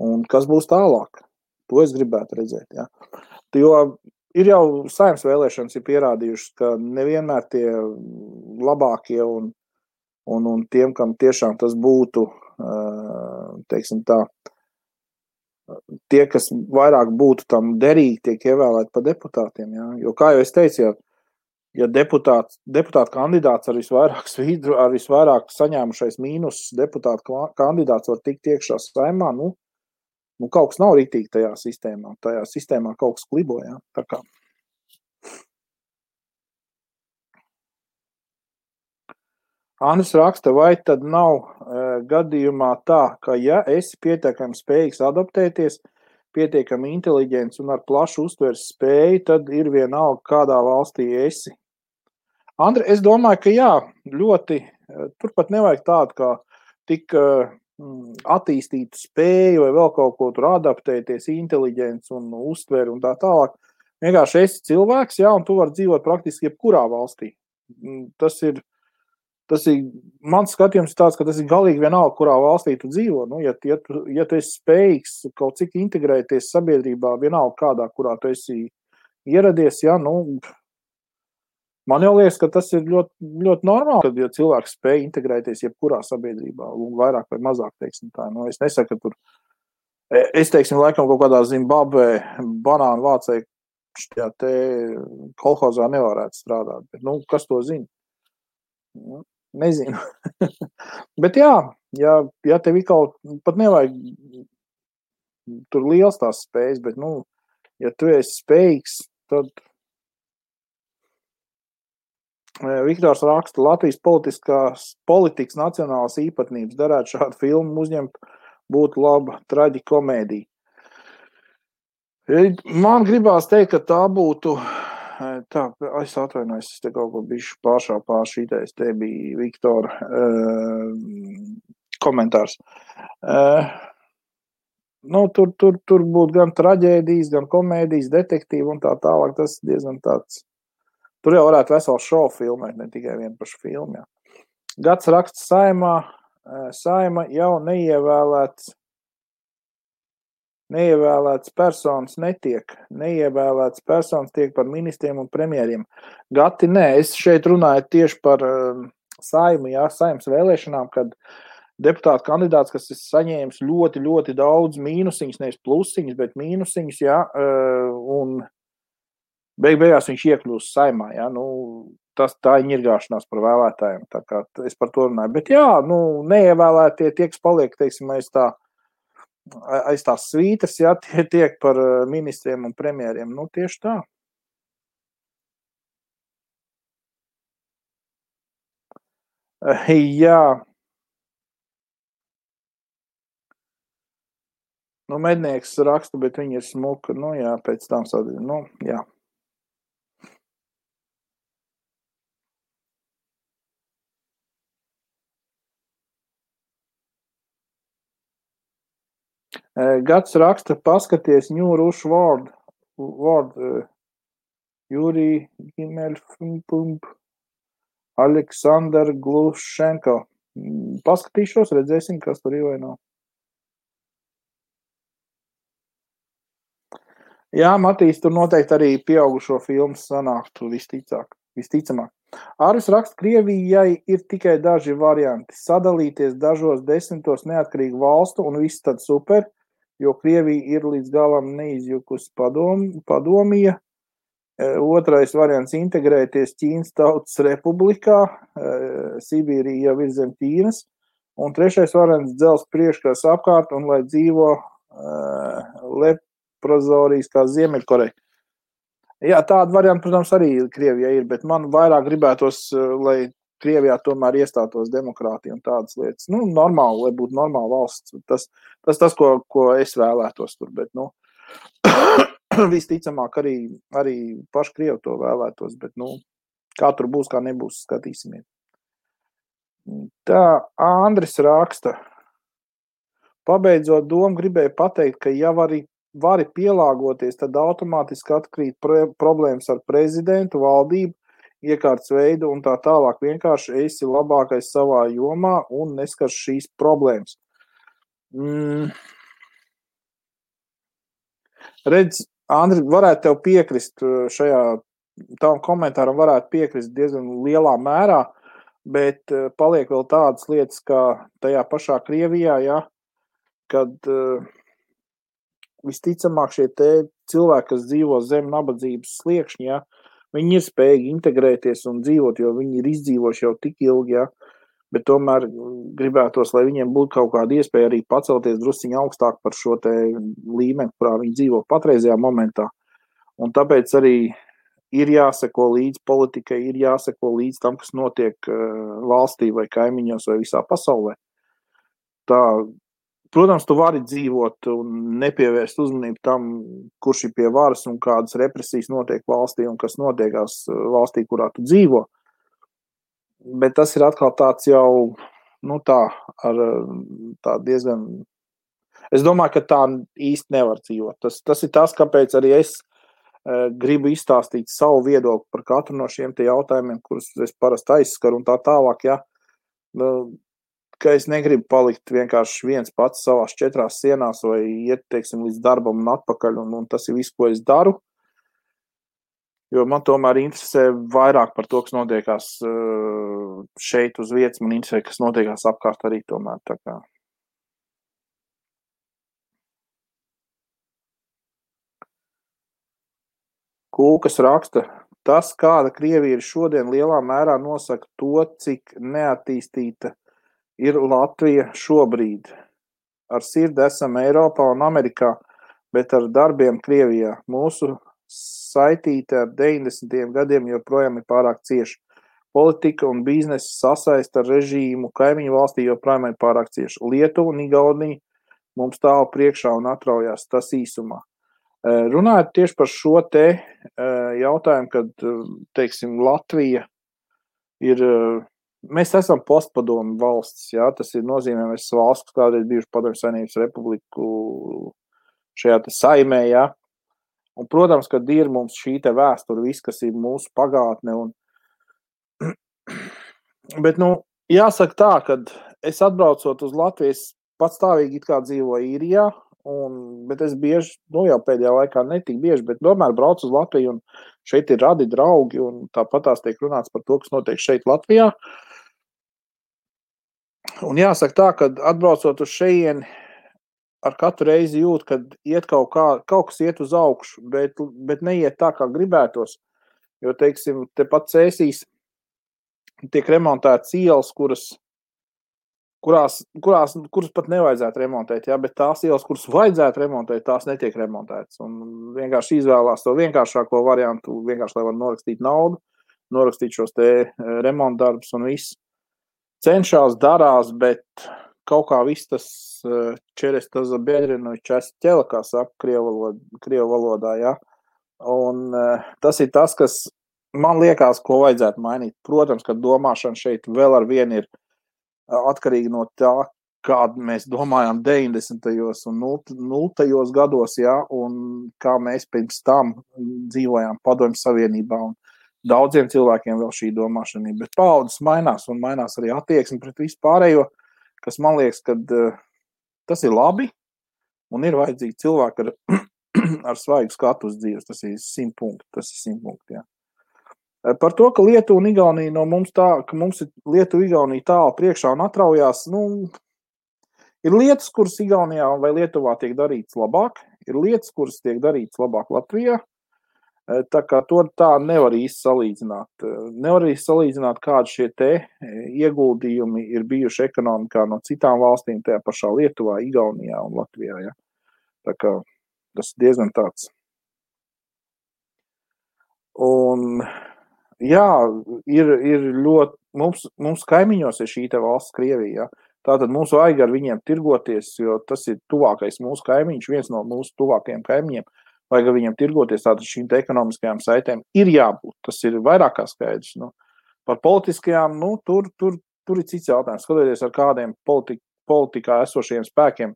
Un kas būs tālāk? To es gribētu redzēt, ja. Jo ir jau saimnes vēlēšanas ir pierādījušas, ka nevienmēr tie labākie un tiem, kam tiešām tas būtu, teiksim tā, tie, kas vairāk būtu tam derīgi, tiek ievēlēti par deputātiem, ja. Jo, kā jau es teicu, ja deputāta kandidāts ar visvairāk saņēmušais mīnus deputāta kandidāts var tikt iekšā saimā, nu kaut kas nav ritīgi tajā sistēmā. Tajā sistēmā kaut kas klibo, ja. Tā kā. Andris raksta, vai tad nav gadījumā tā, ka ja esi pietiekami spējīgs adaptēties, pietiekami inteliģents un ar plašu uztveres spēju, tad ir vienalga, kādā valstī esi. Andri, es domāju, ka jā, ļoti, turpat nevajag tādu, kā tik attīstītu spēju vai vēl kaut ko tur adaptēties, inteliģents un uztveri un tā tālāk. Vienkārši esi cilvēks, jā, un tu vari dzīvot praktiski jebkurā valstī. Tas ir mans skatījums tāds, ka tas ir galīgi vienalga, kurā valstī tu dzīvo. Nu, ja tu esi spējīgs kaut cik integrēties sabiedrībā, vienalga kādā, kurā tu esi ieradies, jā, nu, man jau liekas, ka tas ir ļoti, ļoti normāli, kad ja cilvēks spēj integrēties jebkurā sabiedrībā, vairāk vai mazāk, teiksim tā. Nu, es nesaku, ka tur, es teiksim, laikam kaut kādā Zimbabvē banānu vācēji šajā te kolhozā nevarētu strādāt, bet, nu, kas to zina? Nezinu. Bet jā, ja tev kaut pat nevajag tur liels tās spējas, bet, nu, ja tu esi spējīgs, tad Viktors raksta, Latvijas politikas nacionālās īpatnības darētu šādu filmu uzņemt, būtu laba traģikomēdija. Man gribās teikt, ka tā būtu, tā, es atvainojos, es te kaut ko bišķi pāršītais, te bija Viktora komentārs. Nu, tur būtu gan traģēdijas, gan komēdijas, detektīvi un tā tālāk, tas diezgan tāds. Tur jau varētu veselu šovu filmēt, ne tikai vienu pašu filmu. Jā. Gads raksts saima jau neievēlēts personas netiek. Neievēlēts personas tiek par ministriem un premjeriem. Gati, nē, es šeit runāju tieši par saimu, jā, saimas vēlēšanām, kad deputāta kandidāts, kas ir saņēmis ļoti, ļoti daudz mīnusiņus, nevis plusiņus, bet mīnusiņus, jā, un beigās viņš iekļūst saimā, ja? Nu, tā ir ņirgāšanās par vēlētājiem, tā kā es par to runāju. Bet jā, nu, neievēlētie tie, kas paliek, teiksim, aiz tās svītas, ja, tie tiek par ministriem un premjeriem. Nu, tieši tā. Jā. Nu, mednieks raksta, bet viņi ir smuka. Nu, jā, pēc tam sadzīv. Nu, jā. Gads raksta, paskaties New Rush World Juri Gimelfump, Aleksandr Glušenko. Paskatīšos, redzēsim, kas tur ir vai nav. Jā, Matīs, tur noteikti arī pieaugušo filmu sanāktu visticamāk. Ārvis raksta, Krievijai ir tikai daži varianti. Sadalīties dažos 10 neatkarīgu valstu un viss tad super, jo Krievija ir līdz galam neizjukusi padomija. Otrais variants - integrēties Ķīnas Tautas Republikā, Sibīrija jau ir zem Ķīnas. Un trešais variants - dzels priekškars apkārt un lai dzīvo leprozorijas kā Ziemeļkoreja. Jā, tāda varianta, protams, arī Krievijā ir, bet man vairāk gribētos, lai Krievijā tomēr iestātos demokrātija un tādas lietas. Nu, normāli, lai būtu normāla valsts. Tas, ko es vēlētos tur, bet, nu, visticamāk arī paši Krievi to vēlētos, bet, nu, kā tur būs, kā nebūs, skatīsimies. Tā, Andris raksta. Pabeidzot domu, gribēju pateikt, ka ja vari pielāgoties, tad automātiski atkrīt problēmas ar prezidentu, valdību, iekārtas veidu un tā tālāk. Vienkārši esi labākais savā jomā un neskars šīs problēmas. Redz, Andri, varētu tev piekrist šajā tavam komentāram, varētu piekrist diezgan lielā mērā, bet paliek vēl tādas lietas, kā tajā pašā Krievijā, ja, kad visticamāk šie te cilvēki, kas dzīvo zem nabadzības sliekšņa, ja, viņi ir spējīgi integrēties un dzīvot, jo viņi ir izdzīvojuši jau tik ilgi, ja, bet tomēr gribētos, lai viņiem būtu kaut kāda iespēja arī pacelties drusciņi augstāk par šo te līmeni, kurā viņi dzīvo patreizajā momentā. Un tāpēc arī ir jāseko līdz politikai, ir jāseko līdz tam, kas notiek valstī vai kaimiņos vai visā pasaulē. Tā, protams, tu vari dzīvot un nepievērst uzmanību tam, kurš ir pie varas un kādas represijas notiek valstī un kas notiekās valstī, kurā tu dzīvo. Bet tas ir atkal tāds jau, nu tā, ar tā diezgan... Es domāju, ka tā īsti nevar dzīvot. Tas ir tas, kāpēc arī es gribu izstāstīt savu viedokli par katru no šiem te jautājumiem, kurus es parasti aizskaru un tā tālāk, ja, ka es negribu palikt vienkārši viens pats savās 4 sienās vai iet, teiksim, līdz darbam un atpakaļ, un tas ir viss, ko es daru, jo man tomēr interesē vairāk par to, kas notiekās šeit uz vietas, man interesē, kas notiekās apkārt arī tomēr, tā kā. Kūkas raksta, tas, kāda Krievija ir šodien, lielā mērā nosaka to, cik neattīstīta ir Latvija šobrīd. Ar sirdi esam Eiropā un Amerikā, bet ar darbiem Krievijā. Mūsu saitīte ar 90. gadiem joprojām ir pārāk cieša. Politika un biznesa sasaista ar režīmu kaimiņu valstī joprojām ir pārāk cieša. Lietuva un Igaunija mums stāv priekšā un atraujās, tas īsumā. Runājot tieši par šo te jautājumu, kad, teiksim, Latvija ir, mēs esam postpadomu valsts, jā, tas ir nozīmē, mēs valsts, kas kādreiz bijuši Padomju Savienības republiku šajā te saimē, jā. Un, protams, kad ir mums šī te vēsture, viss, kas ir mūsu pagātne, bet, nu, jāsaka tā, kad es atbraucot uz Latviju, es patstāvīgi it kā dzīvoju Īrijā, bet es bieži, nu jau pēdējā laikā netik bieži, bet tomēr braucu uz Latviju un šeit ir radi draugi un tāpatās tiek runāts par to, kas notiek šeit Latvijā. Un jāsaka tā, kad atbraucot uz šejieni, ar katru reizi jūt, kad iet kaut kas iet uz augšu, bet neiet tā, kā gribētos. Jo, teiksim, tepat Cēsīs tiek remontētas ielas, kuras pat nevajadzētu remontēt, ja, bet tās ielas, kuras vajadzētu remontēt, tās netiek remontētas. Un vienkārši izvēlās to vienkāršāko variantu, vienkārši, lai var norakstīt naudu, norakstīt šos te remontdarbus un viss. Cenšās, darās, bet kaut kā viss tas čeres tas biedrinu čest ķela, kā saka krievu valodā, ja. Un tas ir tas, kas man liekas, ko vajadzētu mainīt. Protams, ka domāšana šeit vēl ar vienu ir atkarīgi no tā, kādu mēs domājām 90. un 0. gados, ja, un kā mēs pirms tam dzīvojām Padomju Savienībā, un daudziem cilvēkiem vēl šī domāšana ir, bet paaudzes mainās, un mainās arī attieksme pret vispārējo, kas man liekas, ka tas ir labi, un ir vajadzīgi cilvēki ar ar svaigu skatu uz dzīves. Tas ir 100 punkti. Tas ir 100 punkti, jā. Par to, ka Lietuva un Igaunija no mums ka mums ir Lietuva Igaunija tālu priekšā un atraujās, ir lietas, kuras Igaunijā vai Lietuvā tiek darītas labāk, ir lietas, kuras tiek darītas labāk Latvijā. Tā kā to tā nevar īsti salīdzināt. Nevar īsti salīdzināt, kādi šie te ieguldījumi ir bijuši ekonomikā no citām valstīm, tajā pašā Lietuvā, Igaunijā un Latvijā. Ja? Tā kā tas ir diezgan tāds. Un, jā, ir ļoti, mums kaimiņos ir šī te valsts Krievija. Ja? Tātad mums vajag ar viņiem tirgoties, jo tas ir tuvākais mūsu kaimiņš, viens no mūsu tuvākajiem kaimiņiem. Vajag ar viņiem tirgoties, tātad šīm te ekonomiskajām saitēm ir jābūt. Tas ir vairāk kā skaidrs. Par politiskajām, tur ir cits jautājums. Skatoties ar kādiem politikā esošiem spēkiem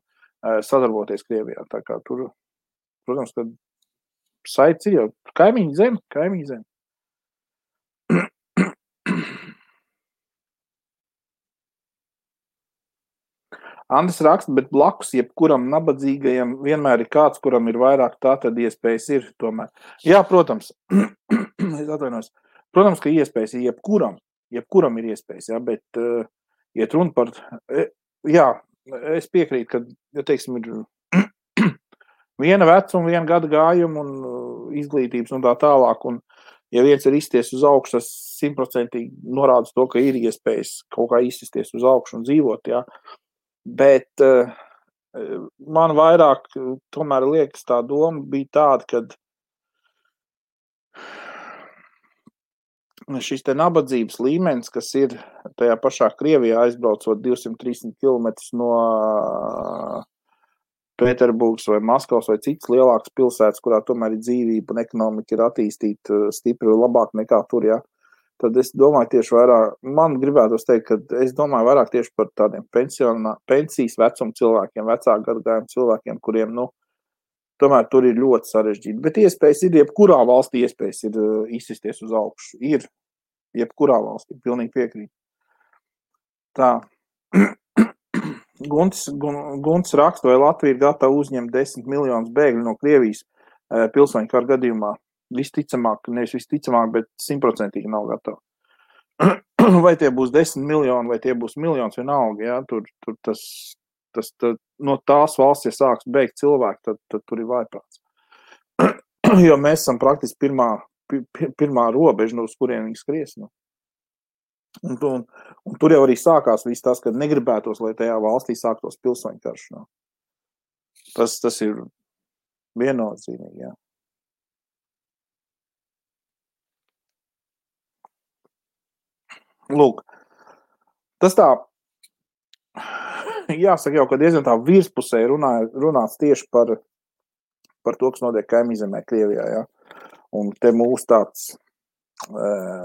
sadarboties Krievijā. Tā kā tur, protams, ka saits ir jau kaimiņu zem. Andris raksta, bet blakus jebkuram nabadzīgajam vienmēr ir kāds, kuram ir vairāk, tā tad iespējas ir tomēr. Jā, protams, es atvainojos. Protams, ka iespējas ir jebkuram ir iespējas, jā, bet iet runa par, jā, es piekrītu, ka, ja teiksim, ir viena vecuma, viena gada gājuma un izglītības un tā tālāk, un ja viens ir izsties uz augšu, tas 100% norāda to, ka ir iespējas kaut kā izsties uz augšu un dzīvot, jā. Bet man vairāk tomēr liekas tā doma bija tāda, kad šis te nabadzības līmenis, kas ir tajā pašā Krievijā aizbraucot 230 km no Pēterburgas vai Maskavas vai citas lielākas pilsētas, kurā tomēr ir dzīvība un ekonomika ir attīstīta stipri labāk nekā tur, jā. Tad es domāju tieši vairāk, man gribētos teikt, ka es domāju vairāk tieši par tādiem pensijas vecuma cilvēkiem, vecāku gadagājumu cilvēkiem, kuriem, tomēr tur ir ļoti sarežģīti. Bet iespējas ir, jebkurā valstī iespējas ir izsisties uz augšu. Ir, jebkurā valstī, pilnīgi piekrīt. Tā. Gunts raksta, vai Latvija ir gatava uzņemt 10 miljonus bēgļu no Krievijas pilsoņu kara gadījumā. Visticamāk, nevis visticamāk, bet 100% nav gatava. Vai tie būs 10 miljoni, vai tie būs miljons vienalga, jā, tur tas no tās valsts, ja sāks beigt cilvēku, tad tur ir vājprāts. Jo mēs esam praktiski pirmā robeža, uz kuriem viņi skries. Un tur jau arī sākās viss tas, kad negribētos, lai tajā valstī sāktos pilsoņu karš. Tas ir viennozīmīgi, jā. Lūk, tas tā, jāsaka jau, ka diezgan tā virspusē runāts tieši par to, kas notiek kaimiņzemē Krievijā, jā. Un te mūs tāds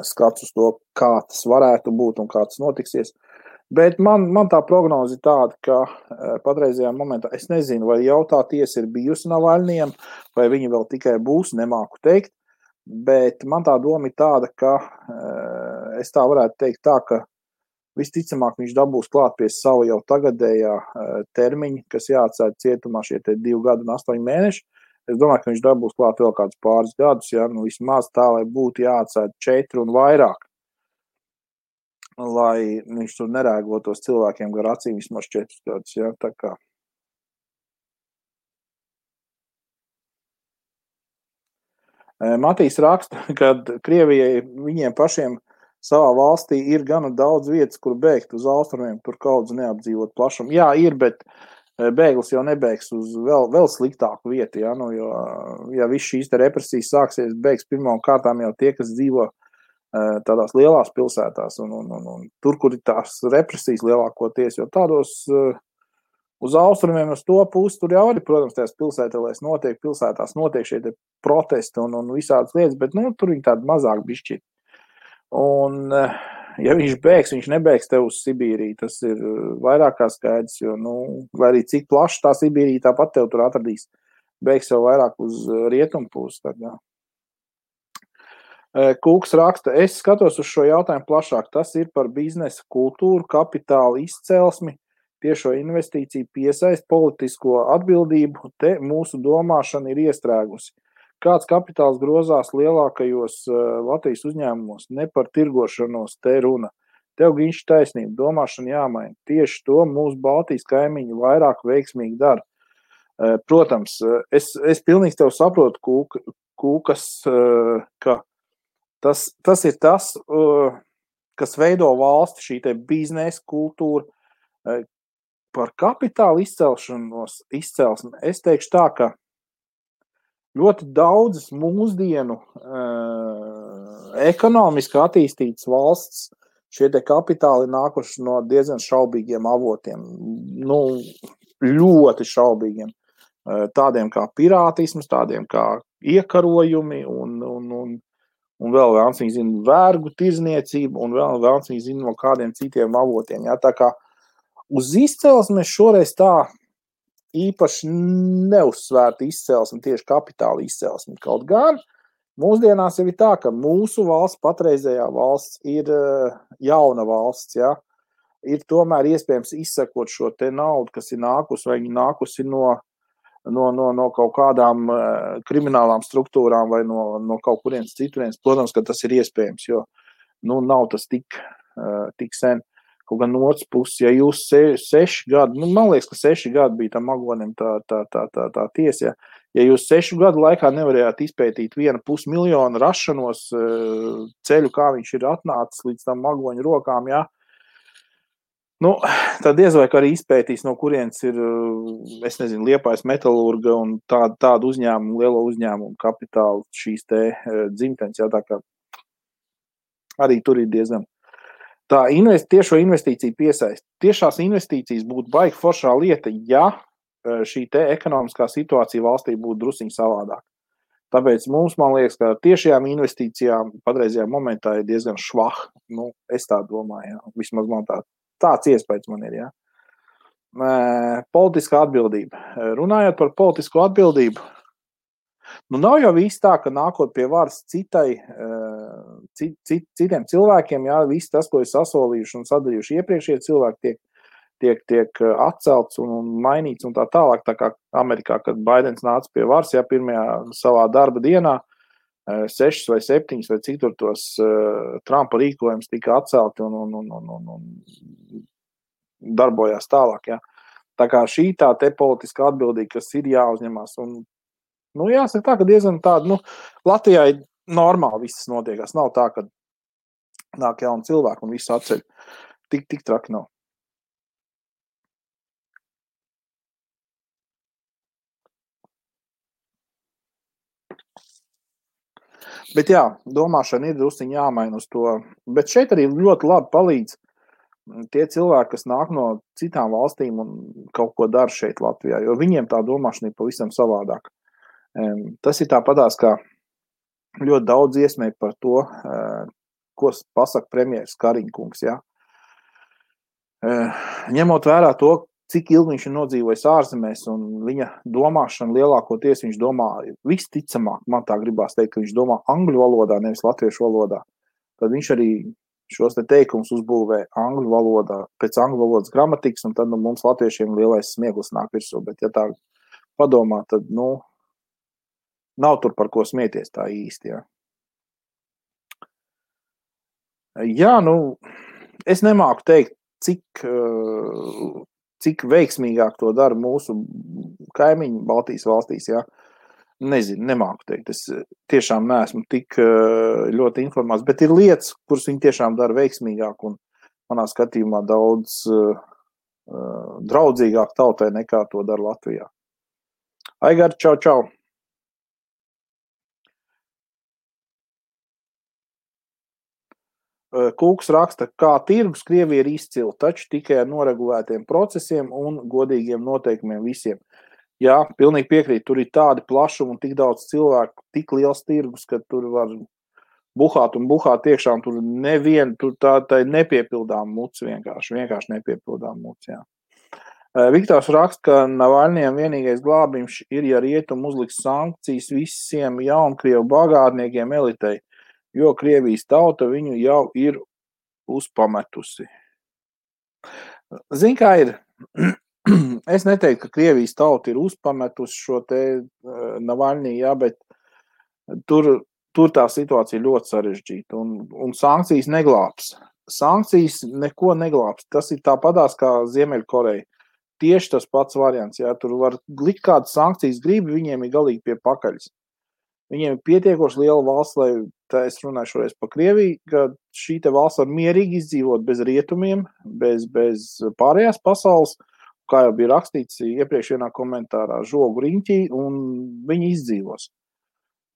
skats uz to, kā tas varētu būt un kā tas notiksies. Bet man tā prognoze ir tāda, ka patreizajā momentā, es nezinu, vai jautā tiesa ir bijusi Navaļnijam, vai viņi vēl tikai būs, nemāku teikt. Bet man tā doma ir tāda, ka es tā varētu teikt tā, ka visticamāk viņš dabūs klāt pie savu jau tagadējā termiņa, kas jāatsēd cietumā šie 2 gadi un 8 mēneši. Es domāju, ka viņš dabūs klāt vēl kādus pāris gadus, ja, vismaz tā, lai būtu jāatsēd 4 un vairāk, lai viņš tur nerēgotos cilvēkiem gar acīm vismaz 4 gadus, ja, tā kā. Matīs raksta, ka Krievijai viņiem pašiem savā valstī ir gana daudz vietas, kur bēgt uz austrumiem, tur kaut kas neapdzīvot plašumu. Jā, ir, bet bēglis jau nebēgs uz vēl sliktāku vietu, ja, jo, ja viss šīs te represijas sāksies, bēgs pirmām kārtām jau tie, kas dzīvo tādās lielās pilsētās, un tur, kur ir tās represijas lielākoties, jo tādos uz austrumiem, uz to pusi, tur jau arī, protams, tās pilsētās notiek šie protesti un visādas lietas, bet, tur viņi tādi mazāk bišķi. Un, ja viņš bēgs, viņš nebēgs tev uz Sibīriju, tas ir vairāk kā skaidrs, jo, lai arī cik plaši tā Sibīrija tāpat tev tur atradīs, bēgs jau vairāk uz rietumu pusi, tad, jā. Kūks raksta, es skatos uz šo jautājumu plašāk, tas ir par biznesa kultūru, kapitāla izcelsmi, tiešo investīciju piesaist politisko atbildību, te mūsu domāšana ir iestrēgusi. Kāds kapitāls grozās lielākajos Latvijas uzņēmumos, ne par tirgošanos te runa. Tev Giņš taisnība, domāšana jāmaina. Tieši to mūsu Baltijas kaimiņi vairāk veiksmīgi dara. Protams, es pilnīgi tev saprotu, Kūkas, ka tas ir tas, kas veido valsti, šī te biznesa kultūra, par kapitāla izcelsmi. Es teikšu tā, ka ļoti daudzas mūsdienu ekonomiski attīstītas valsts šie te kapitāli nākuši no diezgan šaubīgiem avotiem, ļoti šaubīgiem, tādiem kā pirātisms, tādiem kā iekarojumi un vēl vēlams viņi zina vergu tirzniecību un vēl vēlams viņi zina no kādiem citiem avotiem. Jā, tā kā uz izcelsmi šoreiz tā īpaši neuzsvērta izcelsme, tieši kapitāla izcelsme. Kaut gan mūsdienās jau ir tā, ka mūsu valsts, patreizējā valsts ir jauna valsts, jā. Ir tomēr iespējams izsekot šo te naudu, kas ir nākusi, vai viņi nākusi no kaut kādām kriminālām struktūrām vai no kaut kurienes citurienes. Protams, ka tas ir iespējams, jo nav tas tik sen. Kaut gan no otras puses, ja jūs 6 gadi, man liekas, ka 6 gadi bija tam Magonim tā tiesa, ja jūs 6 gadu laikā nevarējāt izpētīt 1,5 miljonu rašanos ceļu, kā viņš ir atnācis līdz tam Magoņu rokām, jā, tad diez vai arī izpētīs, no kurienes ir, es nezinu, Liepājas metalurga un tādu uzņēmumu, lielo uzņēmumu kapitālu šīs te dzimtenes, jā, tā kā arī tur ir diezgan. Tā tiešo investīciju piesaist. Tiešās investīcijas būtu baigi foršā lieta, ja šī te ekonomiskā situācija valstī būtu drusciņ savādāk. Tāpēc mums, man liekas, ka tiešajām investīcijām patreizajā momentā ir diezgan švah. Es tā domāju, jā. Vismaz man tāds iespējas man ir, jā. Politiskā atbildība. Runājot par politisko atbildību, nav jau viss tā, ka nākot pie varas citiem cilvēkiem, jā, viss tas, ko ir sasolījuši un sadarījuši iepriekšējie cilvēki, tiek atcelts un mainīts un tā tālāk, tā kā Amerikā, kad Baidens nāca pie varas, jā, pirmajā savā darba dienā, 6 vai 7 vai cik tur tos Trumpa rīkojums tika atcelti un darbojās tālāk, jā. Tā kā šī tā te politiska atbildība, kas ir jāuzņemās un jāsaka tā, ka diezgan tāda, Latvijā ir normāli viss notiekās. Nav tā, ka nāk jauni cilvēki un visu atceļ. Tik traki nav. Bet jā, domāšana ir drusciņ jāmaina uz to. Bet šeit arī ļoti labi palīdz tie cilvēki, kas nāk no citām valstīm un kaut ko dara šeit Latvijā, jo viņiem tā domāšana ir pavisam savādāk. Tas ir tāpatās, kā ļoti daudz iesmēja par to, ko pasaka premjeras Kariņkungs, jā. Ņemot vērā to, cik ilgi viņš ir nodzīvojis ārzemēs un viņa domāšana lielākoties viņš domā visticamāk, man tā gribās teikt, ka viņš domā angļu valodā, nevis latviešu valodā. Tad viņš arī šos te teikumus uzbūvē angļu valodā, pēc angļu valodas gramatikas, un tad mums latviešiem lielais smieklis nāk virsū, bet ja tā padomā, tad, nav tur par ko smieties tā īsti, jā. Jā, es nemāku teikt, cik veiksmīgāk to dara mūsu kaimiņi Baltijas valstīs, jā. Nezinu, nemāku teikt. Es tiešām neesmu tik ļoti informāts, bet ir lietas, kuras viņi tiešām dara veiksmīgāk un manā skatījumā daudz draudzīgāk tautai nekā to dara Latvijā. Aigar, čau! Kūks raksta, kā tirgus Krievija ir izcila, taču tikai ar noregulētiem procesiem un godīgiem noteikumiem visiem. Jā, pilnīgi piekrīt, tur ir tādi plašumi un tik daudz cilvēku, tik liels tirgus, ka tur var buhāt iekšā, un tur tā ir nepiepildām muts vienkārši nepiepildām muts, jā. Viktors raksta, ka Navaļņiem vienīgais glābiņš ir, ja rietumi uzliks sankcijas visiem jaunkrievu bagātniekiem elitei, jo Krievijas tauta viņu jau ir uzpametusi. Zin, kā ir, Es neteiktu, ka Krievijas tauta ir uzpametusi šo te Navaļnī, jā, bet tur tā situācija ļoti sarežģīta, un sankcijas neglābs. Sankcijas neko neglābs. Tas ir tāpatās kā Ziemeļkoreja. Tieši tas pats variants, jā, tur var likt kādas sankcijas gribi, viņiem ir galīgi pie pakaļas. Viņiem ir pietiekoši liela valsts, lai, tā es runāju šoreiz par Krieviju, ka šī te valsts var mierīgi izdzīvot bez rietumiem, bez pārējās pasaules, kā jau bija rakstīts iepriekš vienā komentārā, žogu riņķī, un viņi izdzīvos.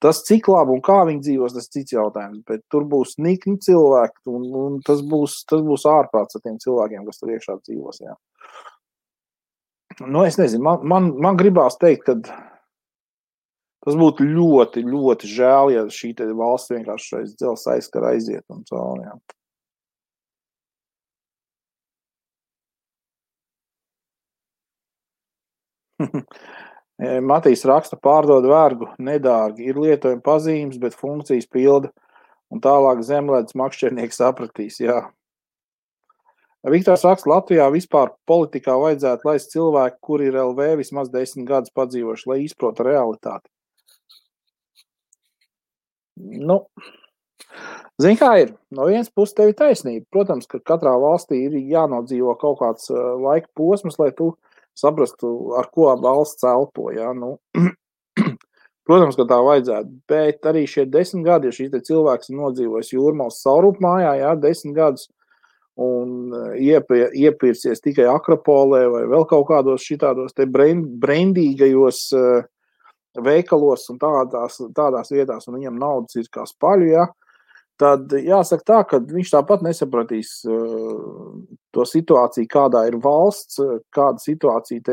Tas, cik labi un kā viņi dzīvos, tas cits jautājums, bet tur būs nikni cilvēki, un tas būs ārprāts ar tiem cilvēkiem, kas tur iekšā dzīvos, jā. Nu, es nezinu, man gribās teikt, ka tas būtu ļoti, ļoti žēl, ja šī te valsts vienkārši aiz dzelzs aizskara aiziet un cauri, jā. Matīs raksta, pārdod vergu, nedārgi, ir lietojuma pazīmes, bet funkcijas pilda, un tālāk zemledus makšķernieks sapratīs, jā. Viktors raksta, Latvijā vispār politikā vajadzētu laist cilvēku, kuri ir LV vismaz 10 gadus padzīvoši, lai izprota realitāti. Nu, zini, kā ir, no vienas puses tev ir taisnība. Protams, ka katrā valstī ir jānodzīvo kaut kāds laika posms, lai tu saprastu, ar ko valsts elpo, jā, nu. Protams, ka tā vajadzētu, bet arī šie 10 gadi, ja šīs te cilvēks ir nodzīvojis Jūrmals Saurupmājā, jā, 10 gadus, un iepircies tikai Akropolē vai vēl kaut kādos šitādos te brendīgajos veikalos un tādās vietās, un viņam naudas ir kā spaļu, ja, tad jāsaka tā, ka viņš tāpat nesapratīs to situāciju, kādā ir valsts, kāda situācija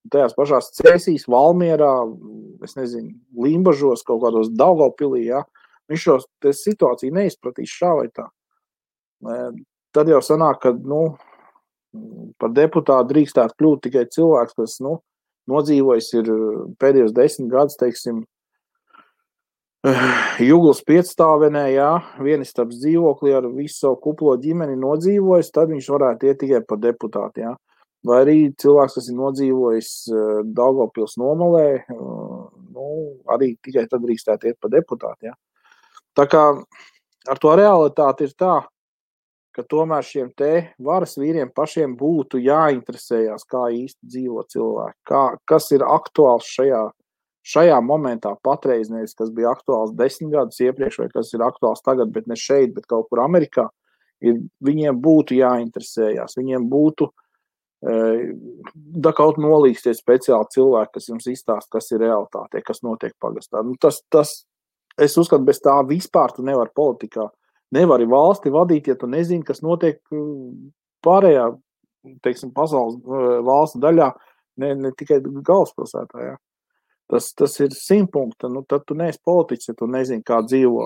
tajās pašās Cēsīs, Valmierā, es nezinu, Limbažos, kaut kādos Daugavpilī, ja, viņš šo situāciju neizpratīs šā vai tā. Tad jau sanāk, ka, nu, par deputātu drīkstētu kļūt tikai cilvēks, kas, nu, nodzīvojis ir pēdējos 10 gadus, teiksim, Juglas piecstāvenē, jā, vienistabas dzīvoklī ar visu savu kuplo ģimeni nodzīvojis, tad viņš varētu iet tikai par deputātu, jā. Vai arī cilvēks, kas ir nodzīvojis Daugavpils nomalē, nu, arī tikai tad drīkstētu iet par deputātu, jā. Tā kā ar to realitāti ir tā, ka tomēr šiem te varas vīriem pašiem būtu jāinteresējās, kā īsti dzīvo cilvēki, kas ir aktuāls šajā momentā patreiz, nevis kas bija aktuāls 10 gadus iepriekš, vai kas ir aktuāls tagad, bet ne šeit, bet kaut kur Amerikā, viņiem būtu jāinteresējās, viņiem būtu da kaut nolīgsties speciāli cilvēki, kas jums izstāst, kas ir realitāte, kas notiek pagastā. Nu, es uzskatu, bez tā vispār tu nevar politikā. Nevari valsti vadīt, ja tu nezini, kas notiek pārējā, teiksim, pasaules valsts daļā, ne tikai galvaspilsētā, jā. Tas ir 100 punkti, nu tad tu neesi politiķis, ja tu nezini, kā dzīvo,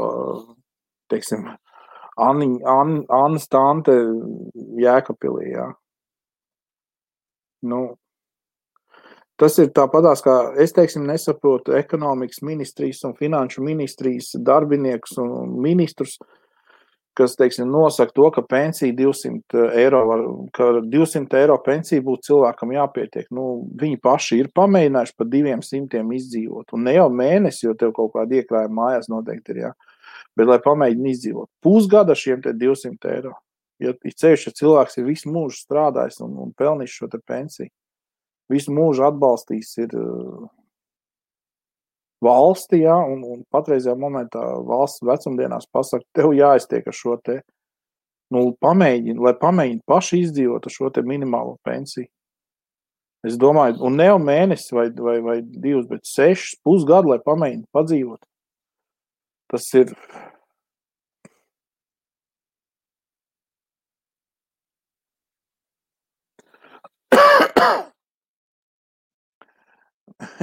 teiksim, Annas tante Jēkabpilī, jā. Nu, tas ir tāpatās, kā es, teiksim, nesaprotu ekonomikas ministrijas un finanšu ministrijas darbiniekus un ministrus, kas, teiksim, nosaka to, ka pensija 200 eiro pensija būtu cilvēkam jāpietiek. Nu, viņi paši ir pamēģinājuši par 200 izdzīvot. Un ne jau mēnesi, jo tev kaut kāda iekrājuma mājās noteikti ir, jā. Bet, lai pamēģina izdzīvot. Pusgada šiem te 200 eiro. Ja ceļš, ja cilvēks ir visu mūžu strādājis un pelnījis šo te pensiju, visu mūžu atbalstījis ir valsti, jā, un patreizajā momentā valsts vecumdienās pasaka, tev jāiztiek ar šo te, nu, lai pamēģina paši izdzīvot ar šo te minimālo pensiju. Es domāju, un ne jau mēnesis vai 2, bet 6 pusgadu, lai pamēģina padzīvot. Tas ir...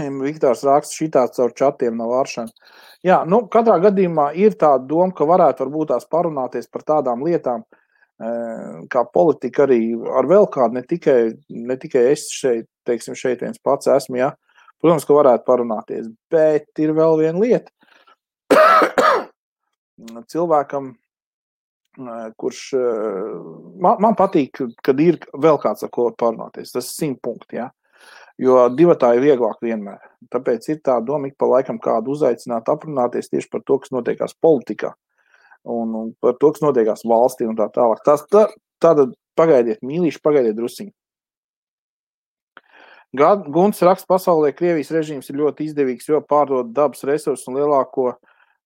Viktors raksta šitāds caur čatiem nav varšana. Jā, nu, katrā gadījumā ir tāda doma, ka varētu varbūt tās parunāties par tādām lietām, kā politika arī ar vēl kādu, ne tikai es šeit, teiksim, šeit viens pats esmu, jā. Protams, ka varētu parunāties, bet ir vēl viena lieta. Cilvēkam kurš man patīk, kad ir vēl kāds, ar ko parunāties. Tas ir 100 punkti, ja? Jo divatā ir vieglāk vienmēr. Tāpēc ir tā doma ik pa laikam kādu uzaicināt, aprunāties tieši par to, kas notiekās politikā un par to, kas notiekās valstī un tā tālāk. Tātad pagaidiet, mīlīši, pagaidiet drusiņi. Gunts raksta, pasaulē Krievijas režīms ir ļoti izdevīgs, jo pārdod dabas resursus un lielāko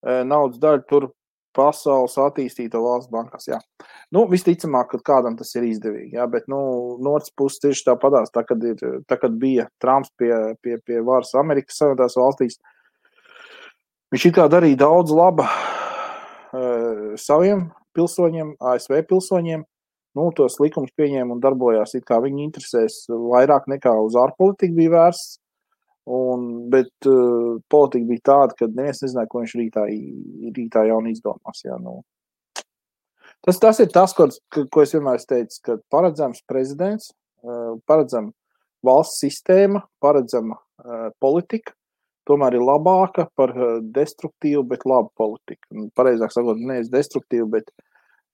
naudas daļu tur pasaules attīstīto valsts bankās, jā. Nu, visticamāk, ka kādam tas ir izdevīgi, jā, bet, no otras puses tieši tāpadās, tā, kad bija Trumps pie varas Amerikas Savienotās valstīs, viņš it kā darīja daudz laba saviem pilsoņiem, ASV pilsoņiem, tos likumus pieņēma un darbojās, it kā viņi interesēs vairāk nekā uz ārpolitiku bija vērsts, bet politika bija tāda, ka neviens nezināja, ko viņš rītā jauni izdomās. Jā, Tas ir tas, ko es vienmēr teicu, ka paredzams prezidents, paredzama valsts sistēma, paredzama politika, tomēr ir labāka par destruktīvu, bet labu politiku. Pareizāk sakot, nevis destruktīvu, bet,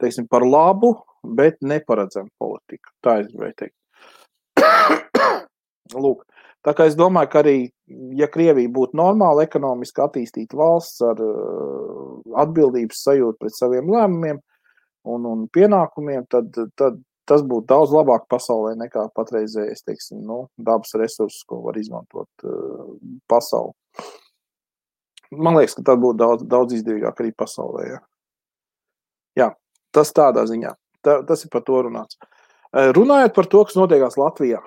teiksim, par labu, bet neparedzamu politiku. Tā es gribēju teikt. Lūk. Tā kā es domāju, ka arī, ja Krievija būtu normāli ekonomiski attīstīta valsts ar atbildības sajūtu pret saviem lēmumiem un pienākumiem, tad tas būtu daudz labāk pasaulē nekā patreizējais, teiksim, dabas resursus, ko var izmantot pasauli. Man liekas, ka tad būtu daudz izdevīgāk arī pasaulē. Jā, tas tādā ziņā. Tas ir par to runāts. Runājot par to, kas notiekās Latvijā.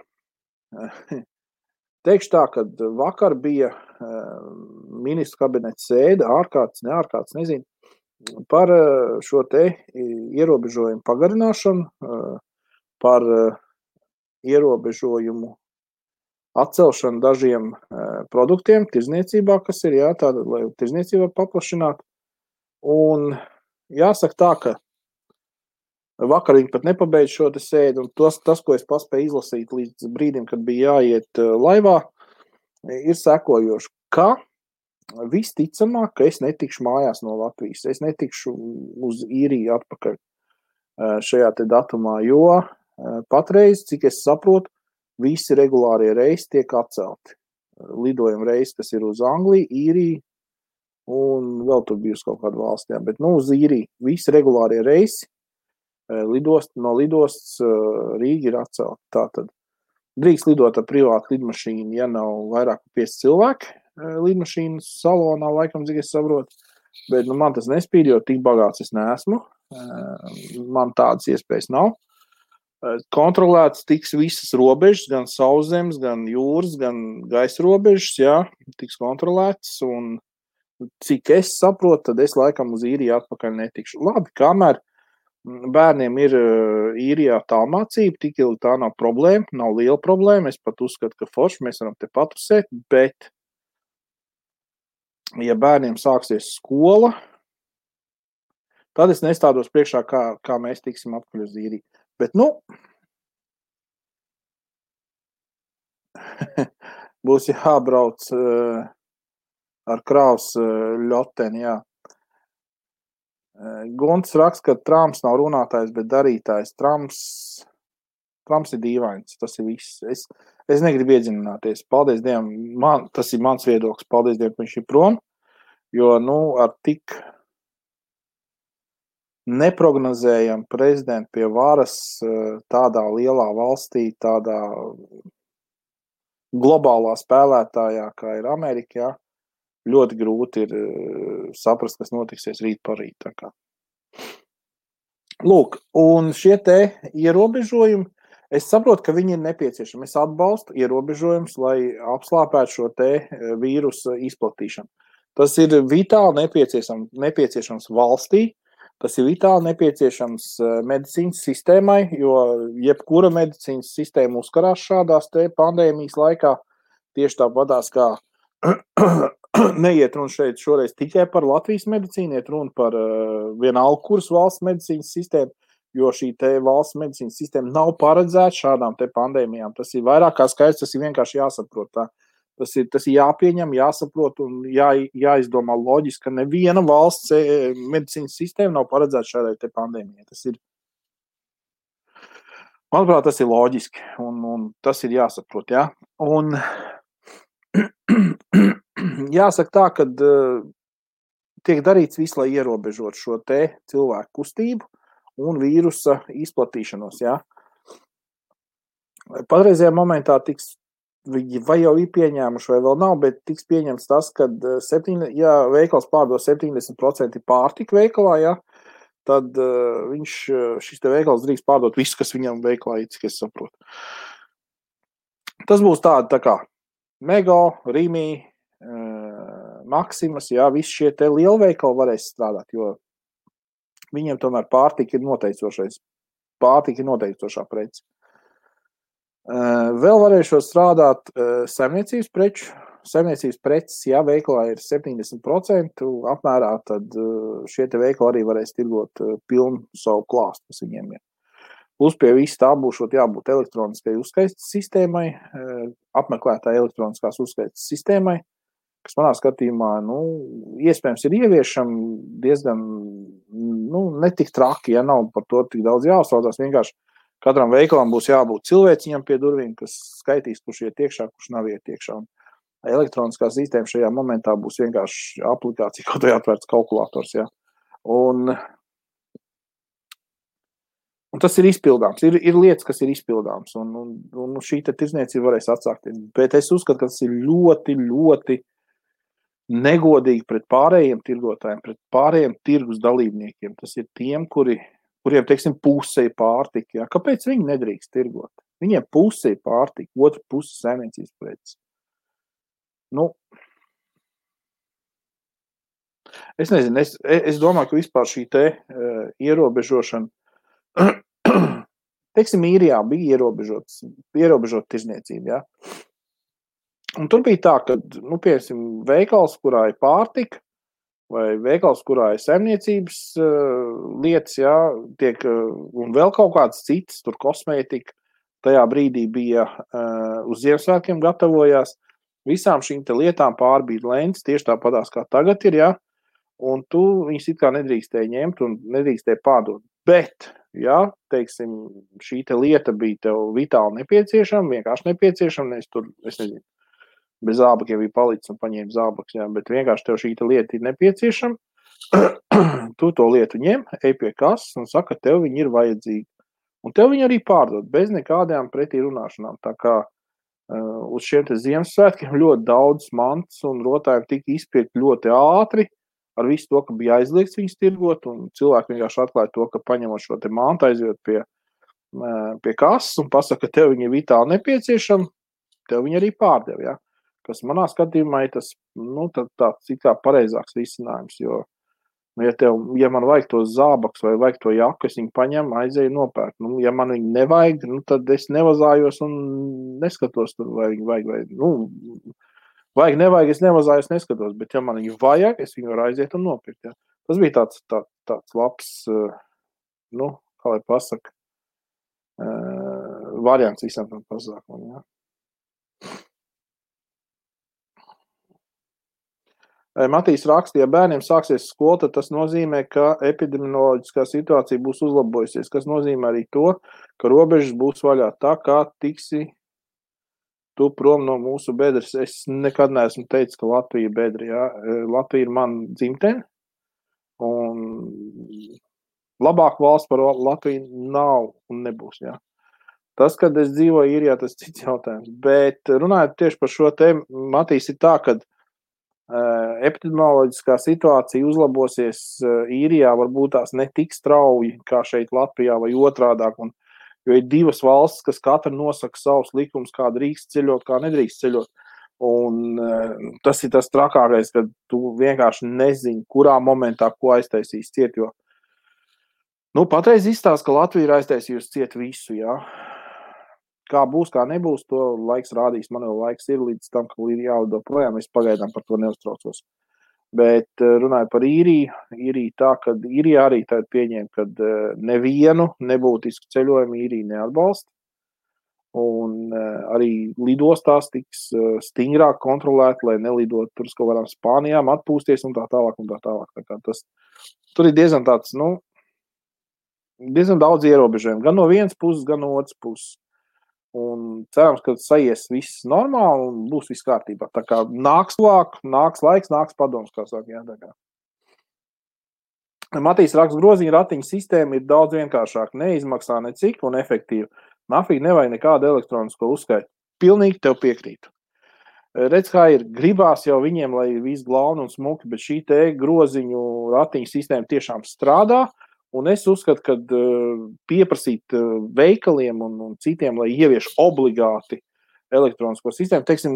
Teikšu tā, ka vakar bija ministru kabineta sēde, ārkārtas, neārkārtas, nezinu, par šo te ierobežojumu pagarināšanu, par ierobežojumu atcelšanu dažiem produktiem tirdzniecībā, kas ir, jā, tāda, lai tirdzniecība paplašinātu. Un jāsaka tā, ka vakar viņi pat nepabeidz šo te sēdi, un tas, ko es paspēju izlasīt līdz brīdim, kad bija jāiet laivā, ir sekojoši, ka visticamāk, ka es netikšu mājās no Latvijas, es netikšu uz īriju atpakaļ šajā te datumā, jo patreiz, cik es saprotu, visi regulārie reisi tiek atcelti. Lidojuma reisi, kas ir uz Angliju, Īriju, un vēl tur bija uz kaut kādu valstī, bet uz Īriju visi regulārie reisi no lidostas Rīga ir atcelta. Tātad drīkst lidot ar privātu lidmašīnu, ja nav vairāk 5 cilvēki lidmašīnas salonā, laikam, cik es saprotu. Bet man tas nespīd, jo tik bagāts es neesmu. Man tādas iespējas nav. Kontrolēts tiks visas robežas, gan sauszemes, gan jūras, gan gaisa robežas, jā, tiks kontrolēts. Un cik es saprotu, tad es laikam uz Īriju atpakaļ netikšu. Labi, kamēr bērniem ir Īrijā tālmācība, tik ilgi tā nav problēma, nav liela problēma. Es pat uzskatu, ka forši mēs varam te patusēt, bet ja bērniem sāksies skola, tad es nestādos priekšā, kā mēs tiksim atpakaļ uz Īriju. Bet, būs jābrauc ar kravas ļoteni, jā. Gunts raksta, ka Trumps nav runātājs, bet darītājs. Trumps ir dīvains, tas ir viss. Es negribu iedziļināties. Paldies Dievam, tas ir mans viedoklis. Paldies Dievam, ka viņš ir prom, jo, ar tik neprognozējam prezidentu pie varas tādā lielā valstī, tādā globālā spēlētājā, kā ir Amerika, jā, ļoti grūti ir saprast, kas notiksies rīt par rīt. Lūk, un šie te ierobežojumi, es saprotu, ka viņi ir nepieciešami. Es atbalstu ierobežojumus, lai apslāpētu šo te vīrusu izplatīšanu. Tas ir vitāli nepieciešams valstī, tas ir vitāli nepieciešams medicīnas sistēmai, jo jebkura medicīnas sistēma uzkarās šādās te pandēmijas laikā, tieši tāpatās kā neiet runa šeit šoreiz tikai par Latvijas medicīnu, iet runa par vienalga kuras valsts medicīnas sistēmu, jo šī te valsts medicīnas sistēma nav paredzēta šādām te pandēmijām. Tas ir vairāk kā skaidrs, tas ir vienkārši jāsaprot tā. Tas ir jāpieņem, jāsaprot un jāizdomā loģiski, ka neviena valsts medicīnas sistēma nav paredzēta šādai te pandēmijai. Manuprāt, tas ir loģiski un tas ir jāsaprot, jā. Un jāsaka tā, ka tiek darīts viss, lai ierobežot šo te cilvēku kustību un vīrusa izplatīšanos, jā. Patreizajā momentā vai jau ir pieņēmuši, vai vēl nav, bet tiks pieņemts tas, ka veikals pārdod 70% pārtika veikalā, ja, tad šis te veikals drīkst pārdot visu, kas viņam veikalā ir, cik es saprotu. Tas būs tā kā Mego, Rimi, Maximas, ja, visi šie te lielveikali varēs strādāt, jo viņiem tomēr pārtika ir noteicošā prece. Vēl varēšot strādāt saimniecības preces, ja veikalā ir 70% apmērā, tad šie te veikali arī varēs tirgot pilnu savu klāstu, kas viņiem ir. Plus pie visu tā būšot jābūt elektroniskai uzskaites sistēmai, apmeklētāja elektroniskās uzskaites sistēmai, kas manā skatījumā, iespējams ir ieviešam diezgan, netik traki, ja nav par to tik daudz jāuztraucās, vienkārši katram veikalam būs jābūt cilvēciņam pie durvīm, kas skaitīs, kurš iet iekšā, kurš nav iet iekšā. Elektroniskā sistēma šajā momentā būs vienkārši aplikācija, kaut vai atvērts kalkulators. Ja. Un tas ir izpildāms. Ir lietas, kas ir izpildāms. Un šī te tirdzniecība varēs atsākties. Bet es uzskatu, ka tas ir ļoti, ļoti negodīgi pret pārējiem tirgotājiem, pret pārējiem tirgus dalībniekiem. Tas ir tiem, kuriem, teiksim, puse ir pārtika. Ja? Kāpēc viņi nedrīkst tirgot? Viņiem puse ir pārtika, otra puse saimniecības preces. Es nezinu, es domāju, ka vispār šī te ierobežošana, teiksim, Īrijā bija ierobežot tirdzniecību, ja? Un tur bija tā, ka, piemēram, veikals, kurā ir pārtika, vai veikals, kurā ir saimniecības lietas, ja, un vēl kaut kāds cits, tur kosmētika, tajā brīdī bija uz Ziemassvētkiem gatavojās, visām šīm te lietām pārbīd lentes, tieši tāpatās kā tagad ir, ja, un tu viņus it kā nedrīkstēji ņemt un nedrīkstēji pārdot. Bet, ja, teiksim, šī te lieta bija tev vitāli nepieciešama, vienkārši nepieciešama, es nezinu, bez zābakiem bija palicis un paņēma zābaks, jā, bet vienkārši tev šī lieta ir nepieciešama, tu to lietu ņem, ej pie kases un saka, ka tev viņi ir vajadzīgi. Un tev viņi arī pārdod, bez nekādām pretī runāšanām. Tā kā uz šiem te Ziemassvētkiem ļoti daudz mantas un rotājiem tika izpirkt ļoti ātri, ar visu to, ka bija aizliegts viņus tirgot, un cilvēki vienkārši atklāja to, ka paņemot šo te mantu, aizjot pie kases un pasaka, ka tev viņi ir vitāli nepieciešami, tev viņi arī pārdev, ja. Kas manā skatījumā ir tas, tāds it kā pareizāks risinājums, jo, ja man vajag to zābaks vai vajag to jaku, es viņu paņemu, aizēju nopērk. Ja man viņu nevajag, tad es nevazājos un neskatos tur, vai viņu vajag, vajag, nevajag, es nevazājos, neskatos, bet ja man viņu vajag, es viņu varu aiziet un nopirkt, ja. Tas bija tāds labs, kā lai pasaka, variants visam tam pasākumam, ja. Matīs rakstīja, ja bērniem sāksies skola, tad tas nozīmē, ka epidemioloģiskā situācija būs uzlabojusies, kas nozīmē arī to, ka robežas būs vaļā. Tā kā tiksi tu prom no mūsu bedres. Es nekad neesmu teicis, ka Latvija ir bedra. Ja? Latvija ir man dzimtene, un labāk valsts par Latviju nav un nebūs. Ja? Tas, kad es dzīvoju Īrijā, tas cits jautājums. Bet runājot tieši par šo tēmu, Matīs, ir tā, ka epidemioloģiskā situācija uzlabosies Īrijā, varbūt tās ne tik strauji kā šeit Latvijā vai otrādāk, jo ir divas valstis, kas katra nosaka savus likumus, kā drīkst ceļot, kā nedrīkst ceļot. Un tas ir tas trakākais, kad tu vienkārši nezini, kurā momentā ko aiztaisīs ciet, jo patreiz izstāsta, ka Latvija ir aiztaisījusi ciet visu, jā. Kā būs, kā nebūs, to laiks rādīs. Man jau laiks ir līdz tam, ka ir jālido projām. Es pagaidām par to neuztraucos. Bet runāju par Īriju tā, ka Īrijā arī tāda pieņēma, ka nevienu nebūtisku ceļojumu Īrija neatbalsta. Un arī lidostās tiks stingrāk kontrolēt, lai nelidot tur uz kaut kādām Spānijām, atpūsties un tā tālāk. Tā kā tur ir diezgan tāds, diezgan daudz ierobežojumu. Gan no vienas puses, gan no otras puses. Un cerams, ka saies viss normāli un būs viss kārtībā. Tā kā nāks laiks, nāks padoms, kā saka. Jā, tā kā. Matīs raksta, groziņa ratiņa sistēma ir daudz vienkāršāka, neizmaksā necik un efektīva. Nafīgi nevajag nekādu elektronisko uzskaitu. Pilnīgi tev piekrītu. Redz, kā ir, gribās jau viņiem, lai viss glauni un smuki, bet šī te groziņu ratiņa sistēma tiešām strādā, un es uzskatu, ka pieprasīt veikaliem un citiem, lai ievieš obligāti elektronisko sistēmu, teiksim,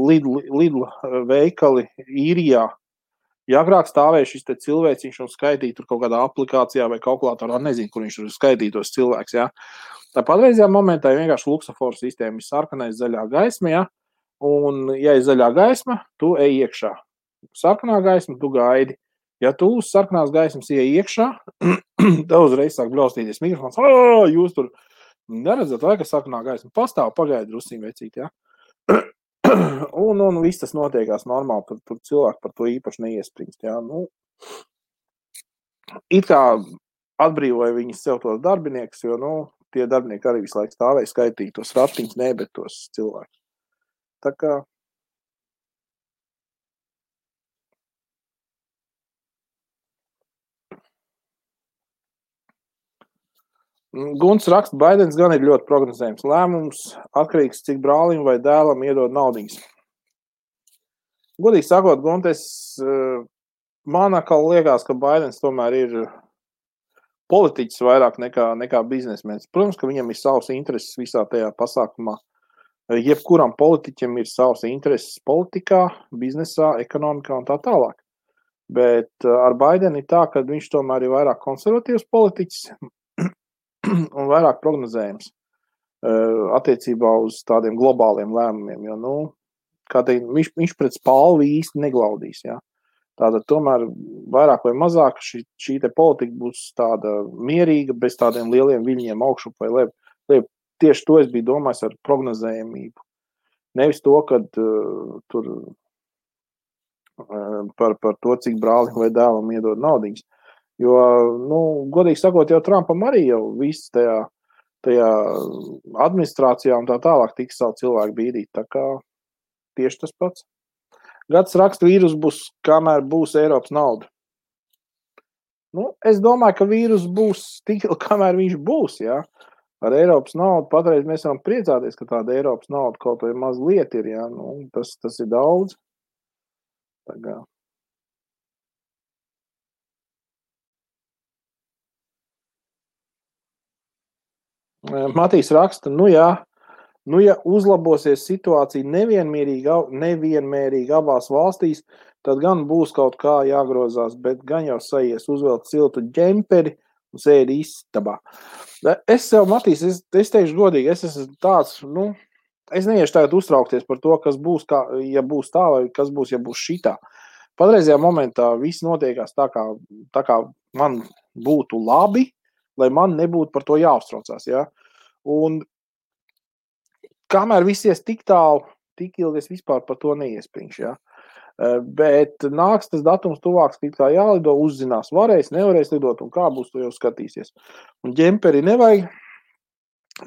Lidl veikali Īrijā, ja agrāk stāvēja šis te cilvēciņš un skaitīja tur kaut kādā aplikācijā vai kalkulatorā, nezinu, kur viņš tur skaitītos cilvēks, jā. Tā patreizajā momentā ir vienkārši luksaforu sistēma, ir sarkanais zaļā gaisma, jā, un ja ir zaļā gaisma, tu ej iekšā. Sarkanā gaisma, tu gaidi. Ja tu uz sarkanās gaismas ej iekšā, tev uzreiz sāk blaustīties mikrofons, jūs tur neredzat, vai ka sarkanā gaisma pastāv, pagaidi drusciņ vecīt, jā. Un viss tas notiekās normāli, tur cilvēki par to īpaši neiespringst. Jā. It kā atbrīvoja viņas sev tos darbiniekus, jo tie darbinieki arī visu laiku stāvēja skaitīt tos ratiņus, ne, bet tos cilvēkus. Tā kā Gunts raksta, Baidens gan ir ļoti prognozējums. Lēmums atkarīgs, cik brālim vai dēlam iedod naudiņas. Godīgi sakot, Guntes, man atkal liekas, ka Baidens tomēr ir politiķis vairāk nekā biznesmenis. Protams, ka viņam ir savs intereses visā tajā pasākumā. Jebkuram politiķim ir savs intereses politikā, biznesā, ekonomikā un tā tālāk. Bet ar Baidenu ir tā, ka viņš tomēr ir vairāk konservatīvs politiķis un vairāk prognozējums attiecībā uz tādiem globāliem lēmumiem, jo, kā teikt, viņš pret spalvi īsti neglaudīs, jā. Tātad tomēr vairāk vai mazāk šī te politika būs tāda mierīga, bez tādiem lieliem viļņiem augšup vai lejp. Tieši to es biju domājis ar prognozējumību. Nevis to, kad tur par to, cik brālim vai dēlam iedod naudiņas. Jo, godīgi sakot, jau Trumpam arī jau viss tajā administrācijā un tā tālāk tiks savu cilvēku bīdīt. Tā kā tieši tas pats. Gads raksta, vīrus būs, kamēr būs Eiropas nauda. Es domāju, ka vīrus būs tik, kamēr viņš būs, jā. Ar Eiropas naudu patreiz mēs varam priecāties, ka tāda Eiropas nauda kaut vai mazliet ir, jā. Tas ir daudz. Tā kā. Matīs raksta, ja uzlabosies situācija nevienmērīgi abās valstīs, tad gan būs kaut kā jāgrozās, bet gan jau saies uzvelt siltu ģemperi un sēdi istabā. Es sev, Matīs, es teikšu godīgi, es esmu tāds, es neiešu tagad uztraukties par to, kas būs, ja būs tā, vai kas būs, ja būs šitā. Patreizajā momentā viss notiekās tā kā man būtu labi, lai man nebūtu par to jāuztraucās, jā. Un kamēr viss ies tik tālu, tik ilgi es vispār par to neiespringšu, jā. Bet nāks tas datums tuvāks, tik kā jālido, uzzinās, nevarēs lidot un kā būs, to jau skatīsies. Un ģemperi nevajag,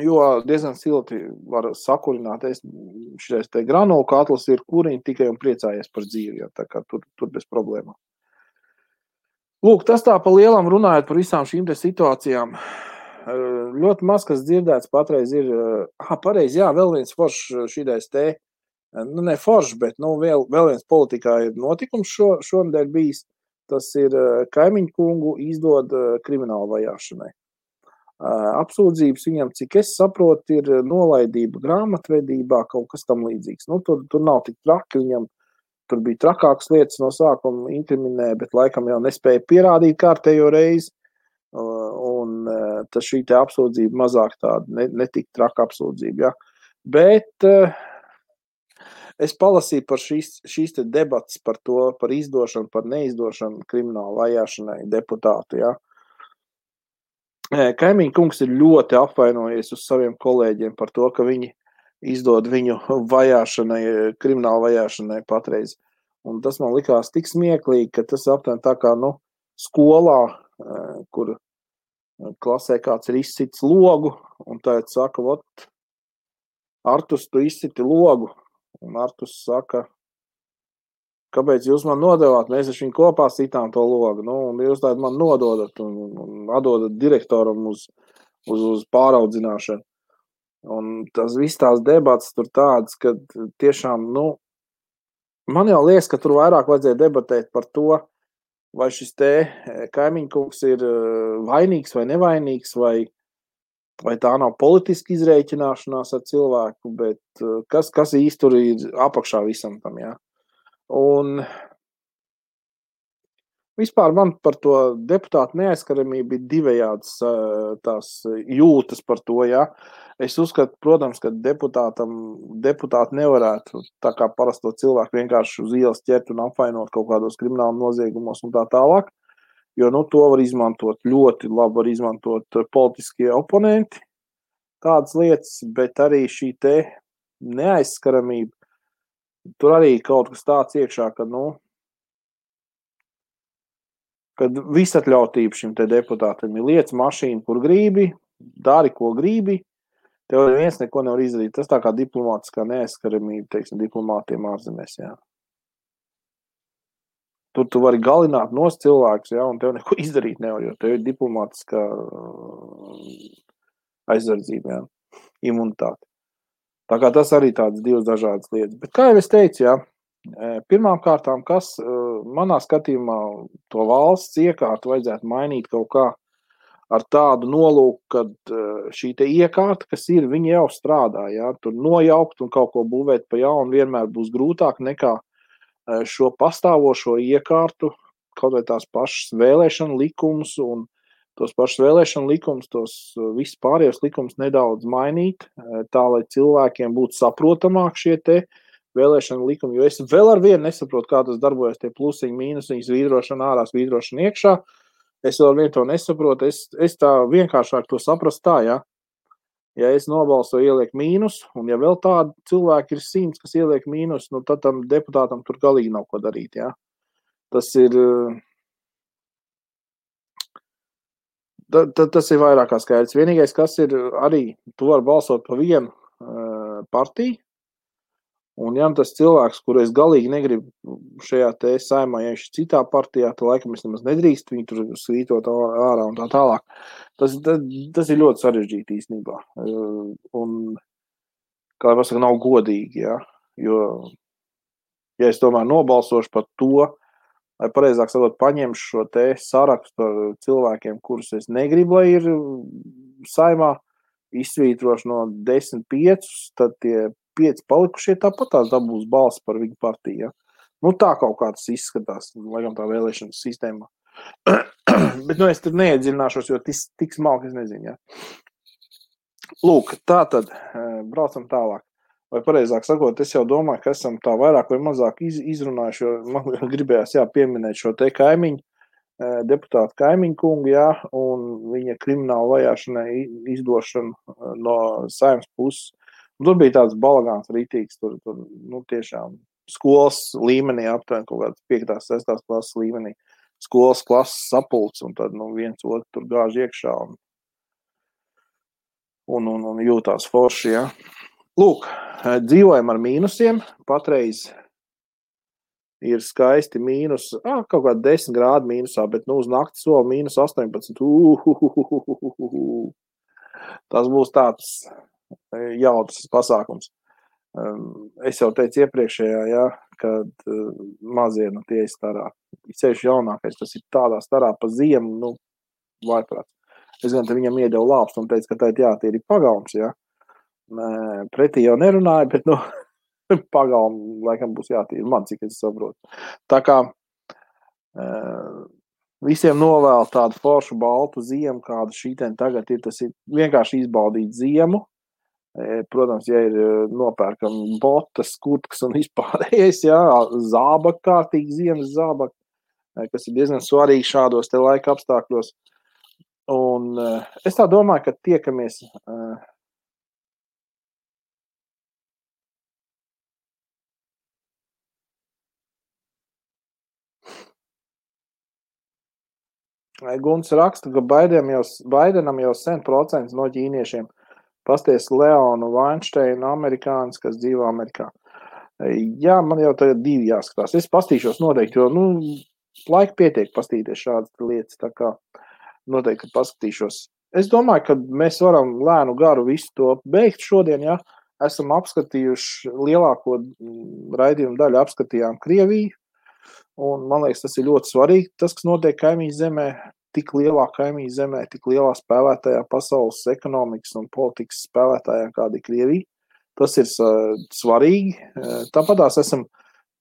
jo diezgan silti var sakurināt. Šitais te granulu katls ir kuriņi tikai un priecājies par dzīvi, jā, tā kā tur bez problēmām. Lūk, tas tā pa lielam runājot par visām šīm te situācijām. Ļoti maz, kas dzirdēts patreiz ir, pareizi, jā, vēl viens foršs šitais te, ne foršs, bet, vēl viens politikā ir notikums šonedēļ bijis, tas ir Kaimiņu kungu izdod kriminālu vajāšanai. Apsūdzības viņam, cik es saprotu, ir nolaidība grāmatvedībā, kaut kas tam līdzīgs. Tur nav tik traki viņam. Tur bija trakākas lietas no sākuma inkriminē, bet laikam jau nespēja pierādīt kārtējo reizi. Un tas šī te apsūdzība mazāk tāda, netik traka apsūdzība. Ja. Bet es palasīju par šīs te debatas par to, par izdošanu, par neizdošanu kriminālu vajāšanai deputātu. Ja. Kaimiņu kungs ir ļoti apvainojies uz saviem kolēģiem par to, ka viņi izdod viņu vajāšanai, krimināla vajāšanai patreiz. Un tas man likās tik smieklīgi, ka tas aptuveni tā kā, skolā, kur klasē kāds ir izcits logu, un tagad saka, vot, Artus, tu izciti logu. Un Artus saka, kāpēc jūs man nodevāt? Mēs ar viņu kopā sitām to logu. Un jūs tādu man nododat un atdodat direktoram uz pāraudzināšanu. Un tas viss tās debats tur tāds, ka tiešām, man jau liekas, ka tur vairāk vajadzēja debatēt par to, vai šis te kaimiņkungs ir vainīgs vai nevainīgs, vai tā nav politiski izrēķināšanās ar cilvēku, bet kas īsti tur ir apakšā visam tam, jā. Un vispār man par to deputātu neaizskaramību ir divējādas tās jūtas par to, jā. Es uzskatu, protams, ka deputāti nevarētu tā kā parasto cilvēku vienkārši uz ielas ķert un apvainot kaut kādos krimināla noziegumos un tā tālāk, jo, to var izmantot, ļoti labi var izmantot politiskie oponenti, tādas lietas, bet arī šī te neaizskaramība, tur arī kaut kas tāds iekšā, kad visatļautība šim te deputātam ir lietas mašīna, kur gribi, dari, ko gribi, tev neviens neko nevar izdarīt. Tas tā kā diplomātiskā neaizskaramība, teiksim, diplomātiem ārzemēs, jā. Tur tu vari galināt nost cilvēkus, jā, un tev neko izdarīt nevar, jo tev ir diplomātiskā aizsardzība, jā, imunitāte. Tā kā tas arī tādas divas dažādas lietas. Bet kā jau es teicu, jā, pirmām kārtām, kas manā skatījumā to valsts iekārtu vajadzētu mainīt kaut kā ar tādu nolūku, kad šī te iekārta, kas ir, viņi jau strādā, jā, tur nojaukt un kaut ko būvēt pa jaunu vienmēr būs grūtāk nekā šo pastāvošo iekārtu, kaut vai tās pašas vēlēšana likumus un tos pašus vēlēšanu likumus, tos visus pārējos likumus nedaudz mainīt, tā, lai cilvēkiem būtu saprotamāk šie te vēlēšanu likumi, jo es vēl ar vienu nesaprotu, kā tas darbojas, tie plusiņi, mīnusiņi, svītrošana ārā, svītrošana iekšā. Es vēl ar vienu to nesaprotu, es tā vienkāršāk to saprast tā, jā. Ja es nobalsoju ieliek mīnus, un ja vēl tādi cilvēki ir 100, kas ieliek mīnus, tad tam deputātam tur galīgi nav ko darīt, jā. Tas ir... Tas ir vairāk kā skaidrs. Vienīgais, kas ir arī, tu vari balsot pa vienu partiju, un ja tas cilvēks, kuru es galīgi negribu šajā te saimā, ja viņš citā partijā, tad laikam es nemaz nedrīkst viņu tur svītot ārā un tā tālāk. Tas ir ļoti sarežģīti īstenībā. Un, kā pasaka, nav godīgi, jā. Jo, ja es tomēr nobalsošu par to, vai pareizāk sakot, paņemšu šo te sarakstu ar cilvēkiem, kurus es negribu, lai ir saimā, izsvītrošu no 10 5, tad tie 5 palikušie tāpat tās dabūs balsi par viņu partiju. Ja? Tā kaut kā tas izskatās, laikam tā vēlēšanas sistēmā. Bet es tur neiedziļināšos, jo tik smalki es nezinu. Ja? Lūk, tā tad braucam tālāk. Vai pareizāk sakot, es jau domāju, ka esam tā vairāk vai mazāk izrunājuši, jo man gribējās pieminēt šo te kaimiņu, deputātu kaimiņu kungu, jā, un viņa krimināla vajāšanai izdošanu no saimnes puses. Un tur bija tāds balagāns rītīgs, tur tiešām skolas līmenī, aptuveni kaut kāds 5. 6. klases līmenī, skolas klases sapulcs, un tad viens otru tur gāž iekšā un jūtās forši, jā. Lūk, dzīvojam ar mīnusiem, patreiz ir skaisti mīnus, kaut kā 10 grādi mīnusā, bet uz nakti sola mīnus 18. Tas būs tāds jautrs pasākums. Es jau teicu iepriekšējā, jā, kad mazie tie ir starā. Ceļš jaunākais, tas ir tādā starā pa ziemu, vaiprāt. Es gan te viņam iedevu lāpstu un teicu, ka tie ir pagalms, jā. Pretī jau nerunāju, bet pagalmu laikam būs jātīra man, cik es saprotu. Tā kā visiem novēl tādu foršu baltu ziemu, kāda šīten tagad ir, tas ir vienkārši izbaudīt ziemu. Protams, ja ir nopērkam botas, kurtkas un vispārējais, jā, zābak, kārtīgi ziemas zābak, kas ir diezgan svarīgi šādos te laika apstākļos. Un es tā domāju, ka tiekamies Guns raksta, ka Baidenam jau 100% no ķīniešiem pasties Leonu Weinsteinu amerikānis, kas dzīvo Amerikā. Jā, man jau tagad 2 jāskatās. Es pastīšos noteikti, jo, laika pietiek pastīties šādas lietas, tā kā noteikti paskatīšos. Es domāju, ka mēs varam lēnu garu visu to beigt šodien, ja esam apskatījuši lielāko raidījumu daļu, apskatījām Krieviju, un man liekas, tas ir ļoti svarīgi, tas, kas notiek kaimiņu zemē, tik lielā kaimiņu zemē, tik lielā spēlētājā pasaules ekonomikas un politikas spēlētājā, kāda ir Krievija. Tas ir svarīgi. Tāpatās esam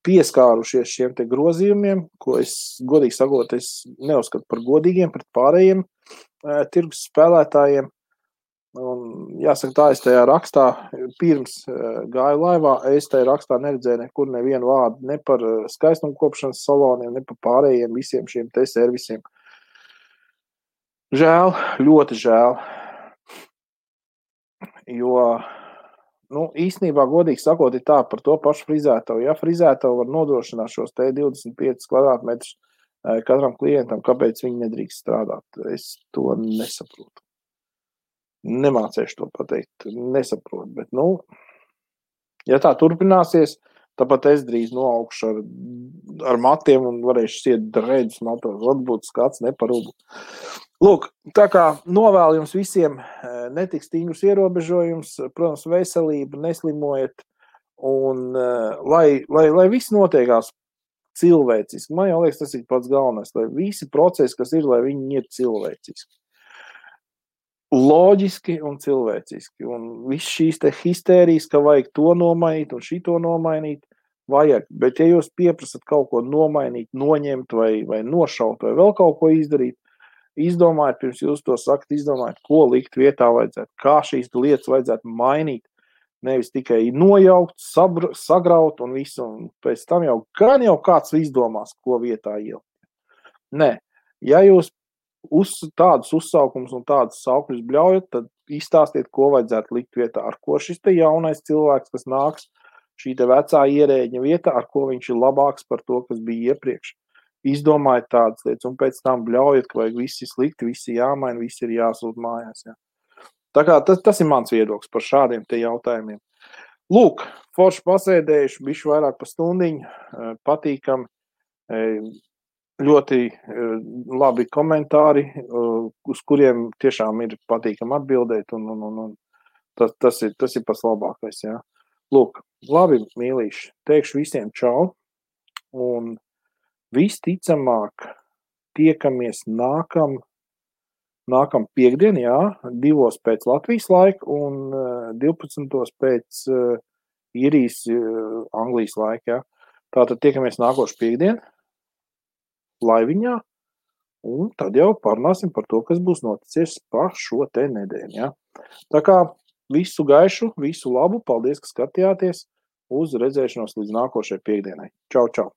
pieskārušies šiem te grozījumiem, ko es, godīgi sakot, es neuzskatu par godīgiem pret pārējiem tirgus spēlētājiem. Un, jāsaka tā, es tajā rakstā, pirms gāju laivā, es tajā rakstā neredzēju nekur nevienu vārdu, ne par skaistumkopšanas saloniem, ne par pārējiem visiem šiem te servisiem. Žēl, ļoti žēl, jo, īstenībā, godīgi sakot, ir tā par to pašu frizētavu. Ja frizētavu var nodrošināt šos te 25 kvadrātmetrus katram klientam, kāpēc viņi nedrīkst strādāt? Es to nesaprotu. Nemācēšu to pateikt, nesaprotu, bet, ja tā turpināsies, tāpat es drīz noaugšu ar matiem un varēšu siet dreidus matos, varbūt skats neparūbu. Lūk, tā kā novēlu jums visiem netik stingrus ierobežojums, protams, veselību, neslimojiet, un lai viss notiekās cilvēciski. Man jau liekas, tas ir pats galvenais, lai visi procesi, kas ir, lai viņi ir cilvēciski. Loģiski un cilvēciski. Un viss šīs te histērijas, ka vajag to nomainīt un šito nomainīt, vajag. Bet ja jūs pieprasat kaut ko nomainīt, noņemt vai nošaut vai vēl kaut ko izdarīt, izdomājiet, pirms jūs to sakat, izdomājiet, ko likt vietā vajadzētu, kā šīs lietas vajadzētu mainīt. Nevis tikai nojaukt, sagraut un visu, un pēc tam jau kāds izdomās, ko vietā ielikt. Nē, ja jūs tādus uzsaukums un tādus saukļus bļaujat, tad izstāstiet, ko vajadzētu likt vietā, ar ko šis te jaunais cilvēks, kas nāks šī te vecā ierēģņa vietā, ar ko viņš ir labāks par to, kas bija iepriekš. Izdomājiet tādas lietas un pēc tam bļaujat, ka vajag visi slikti, visi jāmaina, visi ir jāsūt mājās. Jā. Tā kā tas ir mans viedoklis par šādiem te jautājumiem. Lūk, forši pasēdējuši, bišķi vairāk pa stundiņu, patīkam, ļoti labi komentāri, uz kuriem tiešām ir patīkam atbildēt, un tas ir pats labākais, jā. Lūk, labi, mīlīši, teikšu visiem čau, un visticamāk tiekamies nākam piekdien, jā, 2 pēc Latvijas laika un 12 pēc Īrijas, Anglijas laika, jā. Tātad tiekamies nākošu piekdien, laiviņā, un tad jau parunāsim par to, kas būs noticies pa šo te nedēļu, ja? Tā kā visu gaišu, visu labu, paldies, ka skatījāties, uz redzēšanos līdz nākošajai piekdienai. Čau, čau!